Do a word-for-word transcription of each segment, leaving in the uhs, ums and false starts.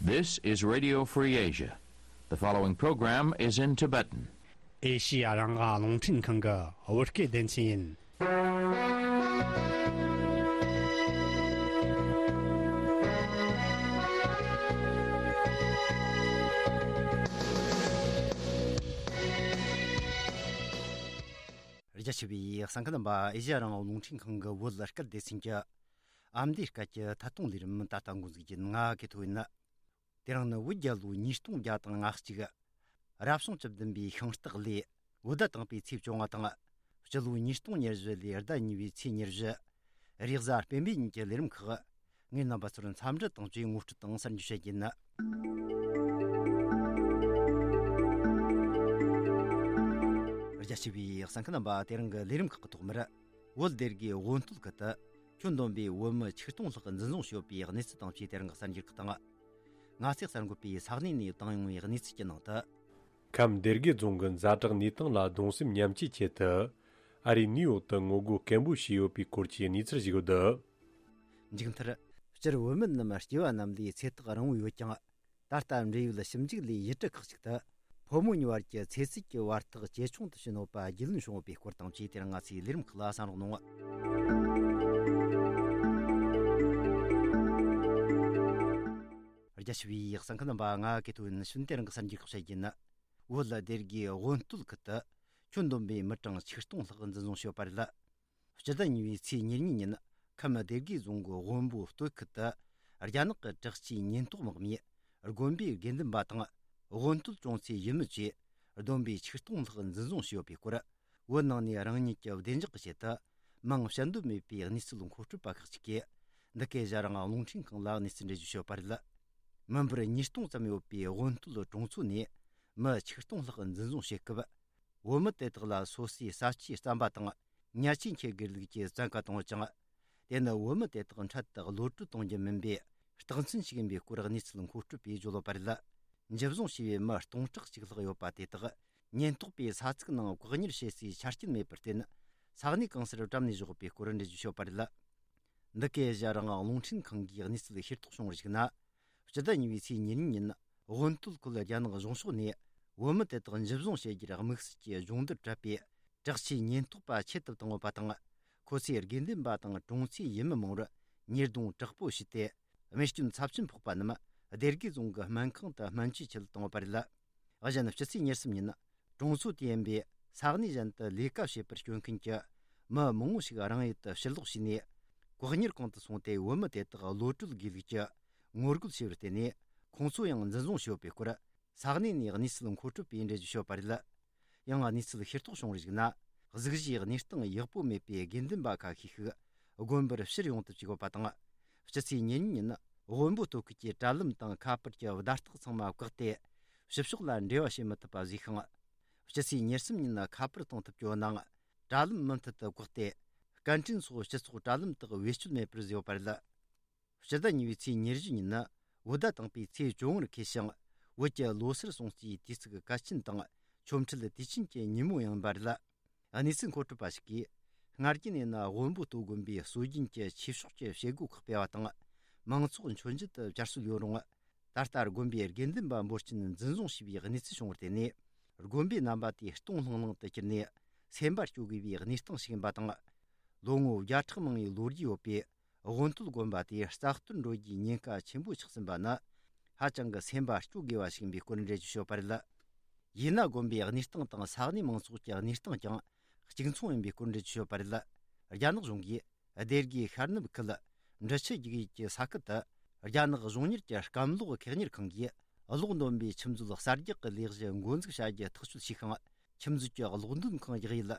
This is Radio Free Asia. The following program is in Tibetan. ཨེ་ཤི་ཡ་རང་དབང་རླུང་འཕྲིན་ཁང་གི་བོད་སྐད་སྡེ་ཚན་ཡིན། རྒྱ་ཆེ་བའི་གསན་མཁན་རྣམ་པ། ཨེ་ཤི་ཡ་རང་དབང་རླུང་འཕྲིན་ཁང་གི་བོད་སྐད་སྡེ་ཚན་གྱི་ཨ་མདོའི་སྐད་ཀྱི་ཐད་གཏོང་ལས་རིམ་ད་ལྟ་འགོ་འཛུགས་རྒྱུ་ཡིན། ང་གི་ཐོ་ཡིན། དེ་རིང་ནི་བོད་རྒྱལ་ལོ་ཉིས་སྟོང་བརྒྱ་དང་ང་གཅིག་རབ་བྱུང་བཅུ་བདུན་པའི་ཤིང་སྟག་ལོའི་བོད་ཟླ་དང་པོའི་ཚེས་བཅོ་ལྔ་དང་། སྤྱི་ལོ་ཉིས་སྟོང་ཉེར་བཞི་ལོའི་ཟླ་གཉིས་པའི་ཚེས་ཉེར་བཞི། རེས་གཟའ་སྤེན་པའི་ཉིན་གྱི་ལས་རིམ་ཁག་ངས་རྣམ་པ་ཚོར་འཚམས་འདྲི་དང་བཅས་ངོ་སྤྲོད་དང་གསར་འགྱུར་བཤད་རྒྱུ་ཡིན། རྒྱ་ཆེ་བའི་གསན་མཁན་རྣམ་པ། དེ་རིང་གི་ལས་རིམ་ཁག་གི་ཐོག་མར། བོད་སྡེ་དགེ་དབོན་སྟོད་ཁུལ་དུ་ཁྱོན་བསྡོམས་པའི་བོད་མི་ཆིག་སྟོང་ལྷག་འཛིན་བཟུང་བྱས་ཡོད་པའི་གནས་ཚུལ་དང་བཅས་དེ་རིང་གི་གསར་འགྱུར་ཁག་དང་། ང་ཚོས་གསར་འགོད་པས་ས་གནས་ནས་བཏང་ཡོང་བའི་གནས་ཚུལ་གྱི་ནང་དུ། ཁམས་སྡེ་དགེ་རྫོང་གི་ཛ་དྲག་གནས་སྟངས་ལ་གདུང་སེམས་མཉམ་སྐྱེད་ཆེད་དུ། ཨ་རིའི་ནིའུ་ཡོག་ཏུ་ངོ་རྒོལ་སྐད་འབོད་བྱས་ཡོད་པའི་སྐོར་གྱི་གནས་ཚུལ་ཞིག་ཡོད། མཇུག་མཐར། སྤྱིར་བོད་མི་རྣམས་སྐྱེ་བ་རྣམས་ལས་ཚེ་ཐག་རིང་བོ་ཡོད་ཀྱང་། ད་ལྟ་འབྲེལ་ཡོད་ཞིབ་འཇུག་ལས་ཡུལ་གྲུ་ཁག་ཅིག་ཏུ། ཕོ་མོ་གཉིས་བར་གྱི་ཚེ་སྲིད་ཀྱི་བར་ཐག་ཇེ་ཆུང་དུ་ཕྱིན་ཡོད་པ་རྒྱུས་ལོན་བྱུང་ཡོད་པའི་སྐོར་དང་བཅས་དེ་རིང་ང་ཚོའི་ལས་རིམ་ཁག་ལ་གསན་རོགས་གནང་། རྒྱ་ཆེ་བའི་གསན་མཁན་རྣམ་པ། ང་གི་ཐོ་ཡིན། ཕྱིན་དེ་རིང་གི་གསར་འགྱུར་ཁག་བཤད་རྒྱུ་ཡིན། བོད་སྡེ་དགེ་དབོན་སྟོད་ཁུལ་དུ་ཁྱོན་བསྡོམས་པའི་མི་གྲངས་ཆིག་སྟོང་ལྷག་འཛིན་བཟུང་བྱས་ཡོད་པ་རེད། སྤྱི་ཟླ་གཉིས་པའི་ཚེས་ཉེར་གཉིས་ཉིན། ཁམས་སྡེ་དགེ་རྫོང་གི་བོན་པོ་སྟོད་ཁུལ་དུ། རྒྱ་ནག་གི་དྲག་ཆས་ཉེན་རྟོག་དམག་མིས། དགོན་པའི་དགེ་འདུན་པ་དང་། དབོན་སྟོད་གྲོང་ཚོའི་ཡུལ་མི་བཅས། བསྡོམས་པས་ཆིག་སྟོང་ལྷག་འཛིན་བཟུང་བྱས་ཡོད་པའི་སྐོར། བོད་ནང་ནས་རང་ཉིད་ཀྱི་བདེ་འཇགས་ཀྱི་ཆེད་དུ། མིང་བཤད་འདོད་མེད་པའི་གནས་ཚུལ་མཁོ་སྤྲོད་པ་ཁག་ཅིག་གིས། འདི་གའི་ཨེ་ཤ་ཡ་རང་དབང་རླུང་འཕྲིན་ཁང་ལ་གནས་ཚུལ་འགྲེལ་བརྗོད་བྱས་ཡོད་པ་རེད། མི་འབོར་ཉིས་སྟོང་ཙམ་ཡོད་པའི་དབོན་སྟོད་གྲོང་ཚོ་ནས། མི་ཆིག་སྟོང་ལྷག་འཛིན་བཟུང་བྱེད་སྐབས། བོད་མི་དེ་དག་ལ་སོ་སོའི་ས་ཆའི་རྩམ་པ་དང་། ཉལ་ཆས་འཁྱེར་དགོས་ལུགས་ཀྱི་བཙན་བཀའ་བཏང་ཡོད་ཅིང་། དེ་ནི་བོད་མི་དེ་དག་འཕྲལ་དུ་གློད་གྲོལ་གཏོང་རྒྱུ་མིན་པའི་རྟགས་མཚན་ཞིག་ཡིན་པའི་སྐོར་གནས་ཚུལ་མཁོ་སྤྲོད་པས་བརྗོད་ཡོད་པ་རེད། འཇུ་བཟུང་བྱས་པའི་མི་སྟོང་ཕྲག་གཅིག་ལྷག་ཡོད་པ་དེ་དག་ཉེན་རྟོག་པས་ས་ཚིགས་ནང་བཀག་ཉར་བྱེད་སའི་ཆ་རྐྱེན་མེད་པར་བརྟེན། ས་གནས་གང་སར་བཀྲམ་ནས་བཞག་ཡོད་པའི་སྐོར་འགྲེལ་བརྗོད་བྱས་ཡོད་པ་རེད། འདི་གའི་ཨེ་ཤ་ཡ་རང་དབང་རླུང་འཕྲིན་ཁང་གིས་གནས་ཚུལ་ཤེས་རྟོགས་བྱུང་བར་གཞིགས་ན། སྤྱི་ཟླ་གཉིས་པའི་ཚེས་ཉེར་གཉིས་ཉིན། དབོན་སྟོད་ཁུལ་རྒྱ་ནག་གཞུང་ཕྱོགས་ནས། བོད་མི་དེ་དག་འཇུ་བཟུང་བྱེད་རྒྱུར་དམིགས་བསལ་གྱི་སྦྱོང་བརྡར་སྤྲད་པའི། དྲག་ཆས་ཉེན་རྟོག་པ་ཆེད་དུ་བཏང་ཡོད་པ་དང་། ཁོ་ཚོས་དགེ་འདུན་པ་དང་གྲོང་ཚོའི་ཡུལ་མི་མང་བོར་ཉེས་རྡུང་དྲག་པོ་བྱས་ཏེ། རྨས་སྐྱོན་ཚབས་ཆེན་ཕོག་པ་རྣམས་སྡེ་དགེ་རྫོང་གི་སྨན་ཁང་དུ་སྨན་བཅོས་ཆེད་བཏང་ཡོད་པ་རེད། གཞན་ཕྱི་ཚེས་ཉེར་གསུམ་ཉིན། གྲོང་ཚོ་དེ་ཡིན་པའི་ས་གནས་གཞན་དུ་ལས་ཀ་བྱེད་པར་བསྐྱོད་མཁན་གྱི་མི་མང་བོ་ཞིག་རང་ཡུལ་དུ་ཕྱིར་ལོག་བྱས་ནས། བཀག་ཉར་ཁང་དུ་སོང་སྟེ། བོད་མི་དེ་དག་གློད་གྲོལ་དགོས་ལུགས་ཀྱི་ངོ་རྒོལ་བྱས་པར་བརྟེན་ནས། ཁོང་ཚོ་ཡང་འཛིན་བཟུང་བྱས་ཡོད་པའི་སྐོར། ས་གནས་ནས་གནས་ཚུལ་མཁོ་སྤྲོད་པས་འགྲེལ་བརྗོད་བྱས་ཡོད་པ་རེད། ཡང་གནས་ཚུལ་ཤེས་རྟོགས་བྱུང་བར་གཞིགས་ན། གཟུགས་གཞིའི་གནས་སྟངས་ཡག་པོ་མེད་པའི་དགེ་འདུན་པ་ཁ་ཤས་ཤིག་དགོན་པར་ཕྱིར་ཡོང་ཐབས་བྱེད་དགོས་པ་དང་། སྤྱི་ཚེས་ཉེར་གཉིས་ཉིན། དབོན་པོ་སྟོད་ཁུལ་གྱི་དྲ་ལམ་དང་ཁ་པར་གྱི་བརྡ་རྟགས་ཚང་མ་བཀག་སྟེ། ཕྱི་ཕྱོགས་ལ་འབྲེལ་བ་བྱེད་མི་ཐུབ་པ་བཟོས་ཤིང་། སྤྱི་ཚེས་ཉེར་གསུམ་ཉིན་ཁ་པར་གཏོང་ཐུབ་ཀྱི་ཡོད་ནའང་། དྲ་ལམ་མུ་མཐུད་དུ་བཀག་སྟེ། སྐད་འཕྲིན་སོགས་སྤྱི་ཚོགས་དྲ་ལམ་དག་བེད་སྤྱོད་མེད་པར་བཟོས་ཡོད་པ་རེད། སྤྱི་ཟླ་གཉིས་པའི་ཚེས་ཉེར་བཞི་ཉིན། བོད་ཟླ་དང་པོའི་ཚེས་བཅོ་ལྔར་འཁེལ་ཞིང་། བོད་ཀྱི་ལོ་སར་སྲུང་བརྩིའི་དུས་ཚིགས་གལ་ཆེན་དང་། ཆོ་འཕྲུལ་དུས་ཆེན་གྱི་ཉིན་མོ་ཡང་ཡིན་པ་རེད། གནས་ཚུལ་མཁོ་སྤྲོད་པ་ཞིག་གིས། སྔར་གྱི་ནས་ན་དབོན་པོ་སྟོད་དགོན་པའི་སྲོལ་རྒྱུན་གྱི་ཆོས་ཕྱོགས་ཀྱི་བྱེད་སྒོ་ཁག་སྤེལ་བ་དང་། མང་ཚོགས་མཆོད་མཇལ་དུ་བཅར་སྲོལ་ཡོད་རུང་། ད་ལྟ་དགོན་པའི་དགེ་འདུན་པ་འབོར་ཆེན་འཛིན་བཟུང་བྱས་པའི་གནས་ཚུལ་བྱུང་བར་བརྟེན་ནས། དགོན་པའི་རྣམ་པ་དེ་སྟོང་ལྷང་ལྷང་དུ་གྱུར་ནས། སེམས་པ་སྐྱོ་དགོས་པའི་གནས་སྟངས་ཤིག་ཡིན་པ་དང་། ལོ་ངོ་བརྒྱ་ཕྲག་མང་བའི་ལོ་རྒྱུས་ཡོད་པའི་དབོན་སྟོད་དགོན་པ་དེ་རྩ་གཏོར་འགྲོ་རྒྱུའི་ཉེན་ཁ་ཆེན་པོ་ཆགས་ཟིན་པ་ནི། ཧ་ཅང་གི་སེམས་པ་སྐྱོ་དགོས་པ་ཞིག་ཡིན་པའི་སྐོར་འགྲེལ་བརྗོད་བྱས་ཡོད་པ་རེད། ཡིན་ན་དགོན་པའི་གནས་སྟངས་དང་ས་གནས་མང་ཚོགས་ཀྱི་གནས་སྟངས་ཀྱང་གཅིག་མཚུངས་ཡིན་པའི་སྐོར་འགྲེལ་བརྗོད་བྱས་ཡོད་པ་རེད། རྒྱ་ནག་གཞུང་གིས་སྡེ་དགེ་ཤར་ནུབ་ཁུལ་འབྲི་ཆུ་རྒྱུག་ཡུལ་གྱི་ས་ཁུལ་དུ། རྒྱ་ནག་གཞུང་གཉེར་གྱི་སྐམ་ལོག་ཁེགས་གཉེར་ཁང་གིས་གློག་འདོན་པའི་ཆུ་མཛོད་གསར་རྒྱག་གི་ལས་གཞི་འགོ་འཛུགས་བྱ་རྒྱུ་ཐག་གཅོད་བྱས་ཤིང་། ཆུ་མཛོད་ཀྱི་གློག་འདོན་ཁང་རྒྱག་ཡུལ་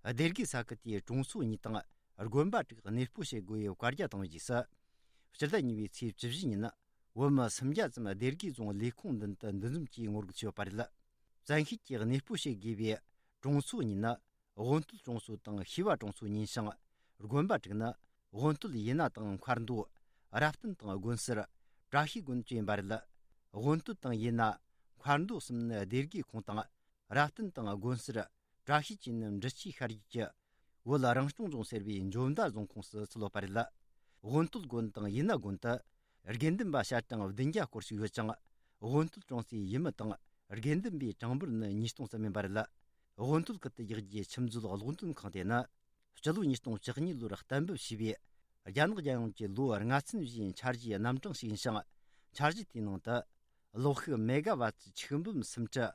སྡེ་དགེ་ས་ཁུལ་དེའི་གྲོང་ཚོ་གཉིས་དང་དགོན་པ་དྲུག་གནས་སྤོ་བྱེད་དགོས་པའི་བཀའ་རྒྱ་བཏང་བའི་རྗེས་སུ། སྤྱི་ཟླ་གཉིས་པའི་ཚེས་བཅུ་བཞི་ཉིན། བོད་མི་སུམ་བརྒྱ་ཙམ་སྡེ་དགེ་རྫོང་ལས་ཁུངས་མདུན་དུ་འདུ་འཛོམས་ཀྱིས་ངོ་རྒོལ་བྱས་ཡོད་པ་རེད། བཙན་ཤེད་ཀྱིས་གནས་སྤོ་བྱེད་དགོས་པའི་གྲོང་ཚོ་གཉིས་ནི། དབོན་སྟོད་གྲོང་ཚོ་དང་ཤེས་པ་གྲོང་ཚོ་ཡིན་ཞིང་། དགོན་པ་དྲུག་ནི། དབོན་སྟོད་ཡིན་ན་དང་མཁར་མདོ། རབ་བརྟན་དང་དགོན་གསར། བཀྲ་ཤིས་དགོན་བཅས་ཡིན་པ་རེད། དབོན་སྟོད་དང་ཡིན་ན། མཁར་མདོ་གསུམ་ནི་སྡེ་དགེ་ཁོངས་དང་། རབ་བརྟན་དང་དགོན་གསར། བཀྲ་ཤིས་བཅས་ནི་འབྲི་ཆུའི་ཤར་རྒྱུད་ཀྱི། བོད་རང་སྐྱོང་ལྗོངས་ཟེར་བའི་འཇོ་མདའ་རྫོང་ཁོངས་སུ་ཚུད་ཡོད་པ་རེད། དབོན་སྟོད་དགོན་དང་ཡིན་ན་དགོན་དུ། དགེ་འདུན་པ་ཞལ་གྲངས་བདུན་བརྒྱ་སྐོར་ཞིག་ཡོད་ཅིང་། དབོན་སྟོད་གྲོང་གསེབ་ཡུལ་མི་དང་དགེ་འདུན་པའི་གྲངས་འབོར་ནི་ཉིས་སྟོང་ཙམ་ཡིན་པ་རེད། དབོན་སྟོད་ཁུལ་དུ་རྒྱག་རྒྱུའི་ཆུ་མཛོད་གློག་འདོན་ཁང་དེ་ནི། སྤྱི་ལོ་ཉིས་སྟོང་བཅུ་གཉིས་ལོར་གཏན་འབེབས་བྱས་པའི་རྒྱ་ནག་རྒྱལ་ཡོངས་ཀྱི་ལོ་ལྔ་ཚན་བཞིའི་འཆར་གཞིའི་རྣམ་གྲངས་ཤིག་ཡིན་ཞིང་། འཆར་གཞི་དེའི་ནང་དུ་གློག་ཤུགས་མེ་ག་ཝཱ་ཊི་ཆིག་འབུམ་སུམ་ཁྲི་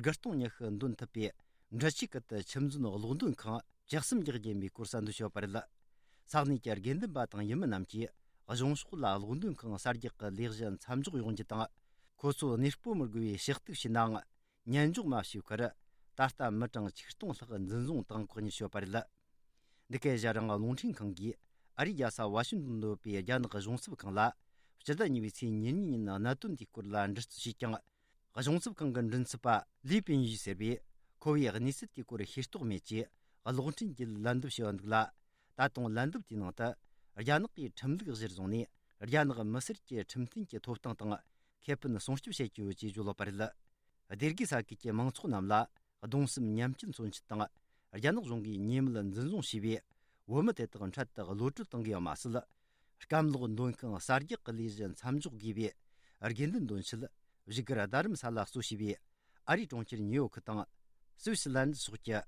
དགུ་སྟོང་ཉི་ཤུ་འདོན་ཐུབ་པའི་འབྲི་ཆུའི་ཁུལ་དུ་ཆུ་མཛོད་གློག་འདོན་ཁང་བཅུ་གསུམ་རྒྱག་རྒྱུ་ཡིན་པའི་སྐོར་གསལ་འདོན་བྱས་པ་རེད། ས་གནས་ཀྱི་དགེ་འདུན་པ་དང་ཡུལ་མི་རྣམས་ཀྱིས་གཞུང་ཕྱོགས་ལ་གློག་འདོན་ཁང་གསར་རྒྱག་གི་ལས་གཞི་མཚམས་འཇོག་ཡོང་རྒྱུ་དང་། ཁོ་ཚོ་གནས་སྤོ་མི་དགོས་པའི་ཞུ་གཏུག་བྱས་ནའང་། ཉན་འཇོག་མ་བྱས་པར་ད་ལྟ་མི་གྲངས་ཆིག་སྟོང་ལྷག་འཛིན་བཟུང་དང་བཀག་ཉར་བྱས་པ་རེད། འདི་གའི་ཞྭ་རིང་རླུང་འཕྲིན་ཁང་གིས་ཨ་རིའི་རྒྱལ་ས་ཝ་ཤིང་ཏོན་དུ་ཡོད་པའི་རྒྱ་ནག་གཞུང་ཚབ་ཁང་ལ་སྤྱི་ཟླ་གཉིས་པའི་ཚེས་ཉེར་གཉིས་ཉིན་གནད་དོན་དེའི་སྐོར་ལ་འདྲི་རྩད་བྱས་ཀྱང་། གཞུང་ཚབ་ཁང་གི་མགྲིན་ཚབ་པ་ལི་པིན་ཡུས་ཟེར་བས། ཁོ་བོས་གནས་ཚུལ་དེའི་སྐོར་ཤེས་རྟོགས་མེད་ཅེས་གློག་འཕྲིན་གྱིས་ལན་འདེབས་བྱས་པ་འདུག་ལ། ད་དུང་ལན་འདེབས་དེའི་ནང་དུ། རྒྱ་ནག་གིས་ཁྲིམས་ལུགས་གཞིར་བཟུང་ནས་རྒྱ་ནག་མི་སེར་གྱི་ཁྲིམས་མཐུན་གྱི་ཐོབ་ཐང་དང་ཁེ་ཕན་སྲུང་སྐྱོབ་བྱེད་ཀྱི་ཡོད་ཅེས་བརྗོད་ཡོད་པ་རེད། སྡེ་དགེ་ས་ཁུལ་གྱི་མང་ཚོགས་རྣམས་ལ་གདུང་སེམས་མཉམ་སྐྱེད་མཚོན་ཆེད་དང་། རྒྱ་ནག་གཞུང་གིས་ཉེས་མེད་འཛིན་བཟུང་བྱས་པའི་བོད་མི་དེ་དག་འཕྲལ་དུ་གློད་གྲོལ་གཏོང་དགོས་པ་མ་ཟད། སྐམ་གློག་འདོན་ཁང་གསར་རྒྱག་གི་ལས་གཞི་མཚམས་འཇོག་དགོས་པའི་དགེ་འདུན་འདོན་ཆེད་བཞུགས་སྒར་རྡ་རམ་ས་ལ་གཙོ་བྱས་པའི་ཨ་རིའི་གྲོང་ཁྱེར་ཉིའུ་ཡོག་དང་སུད་སི་ལན་ཌན་སོགས་ཀྱི་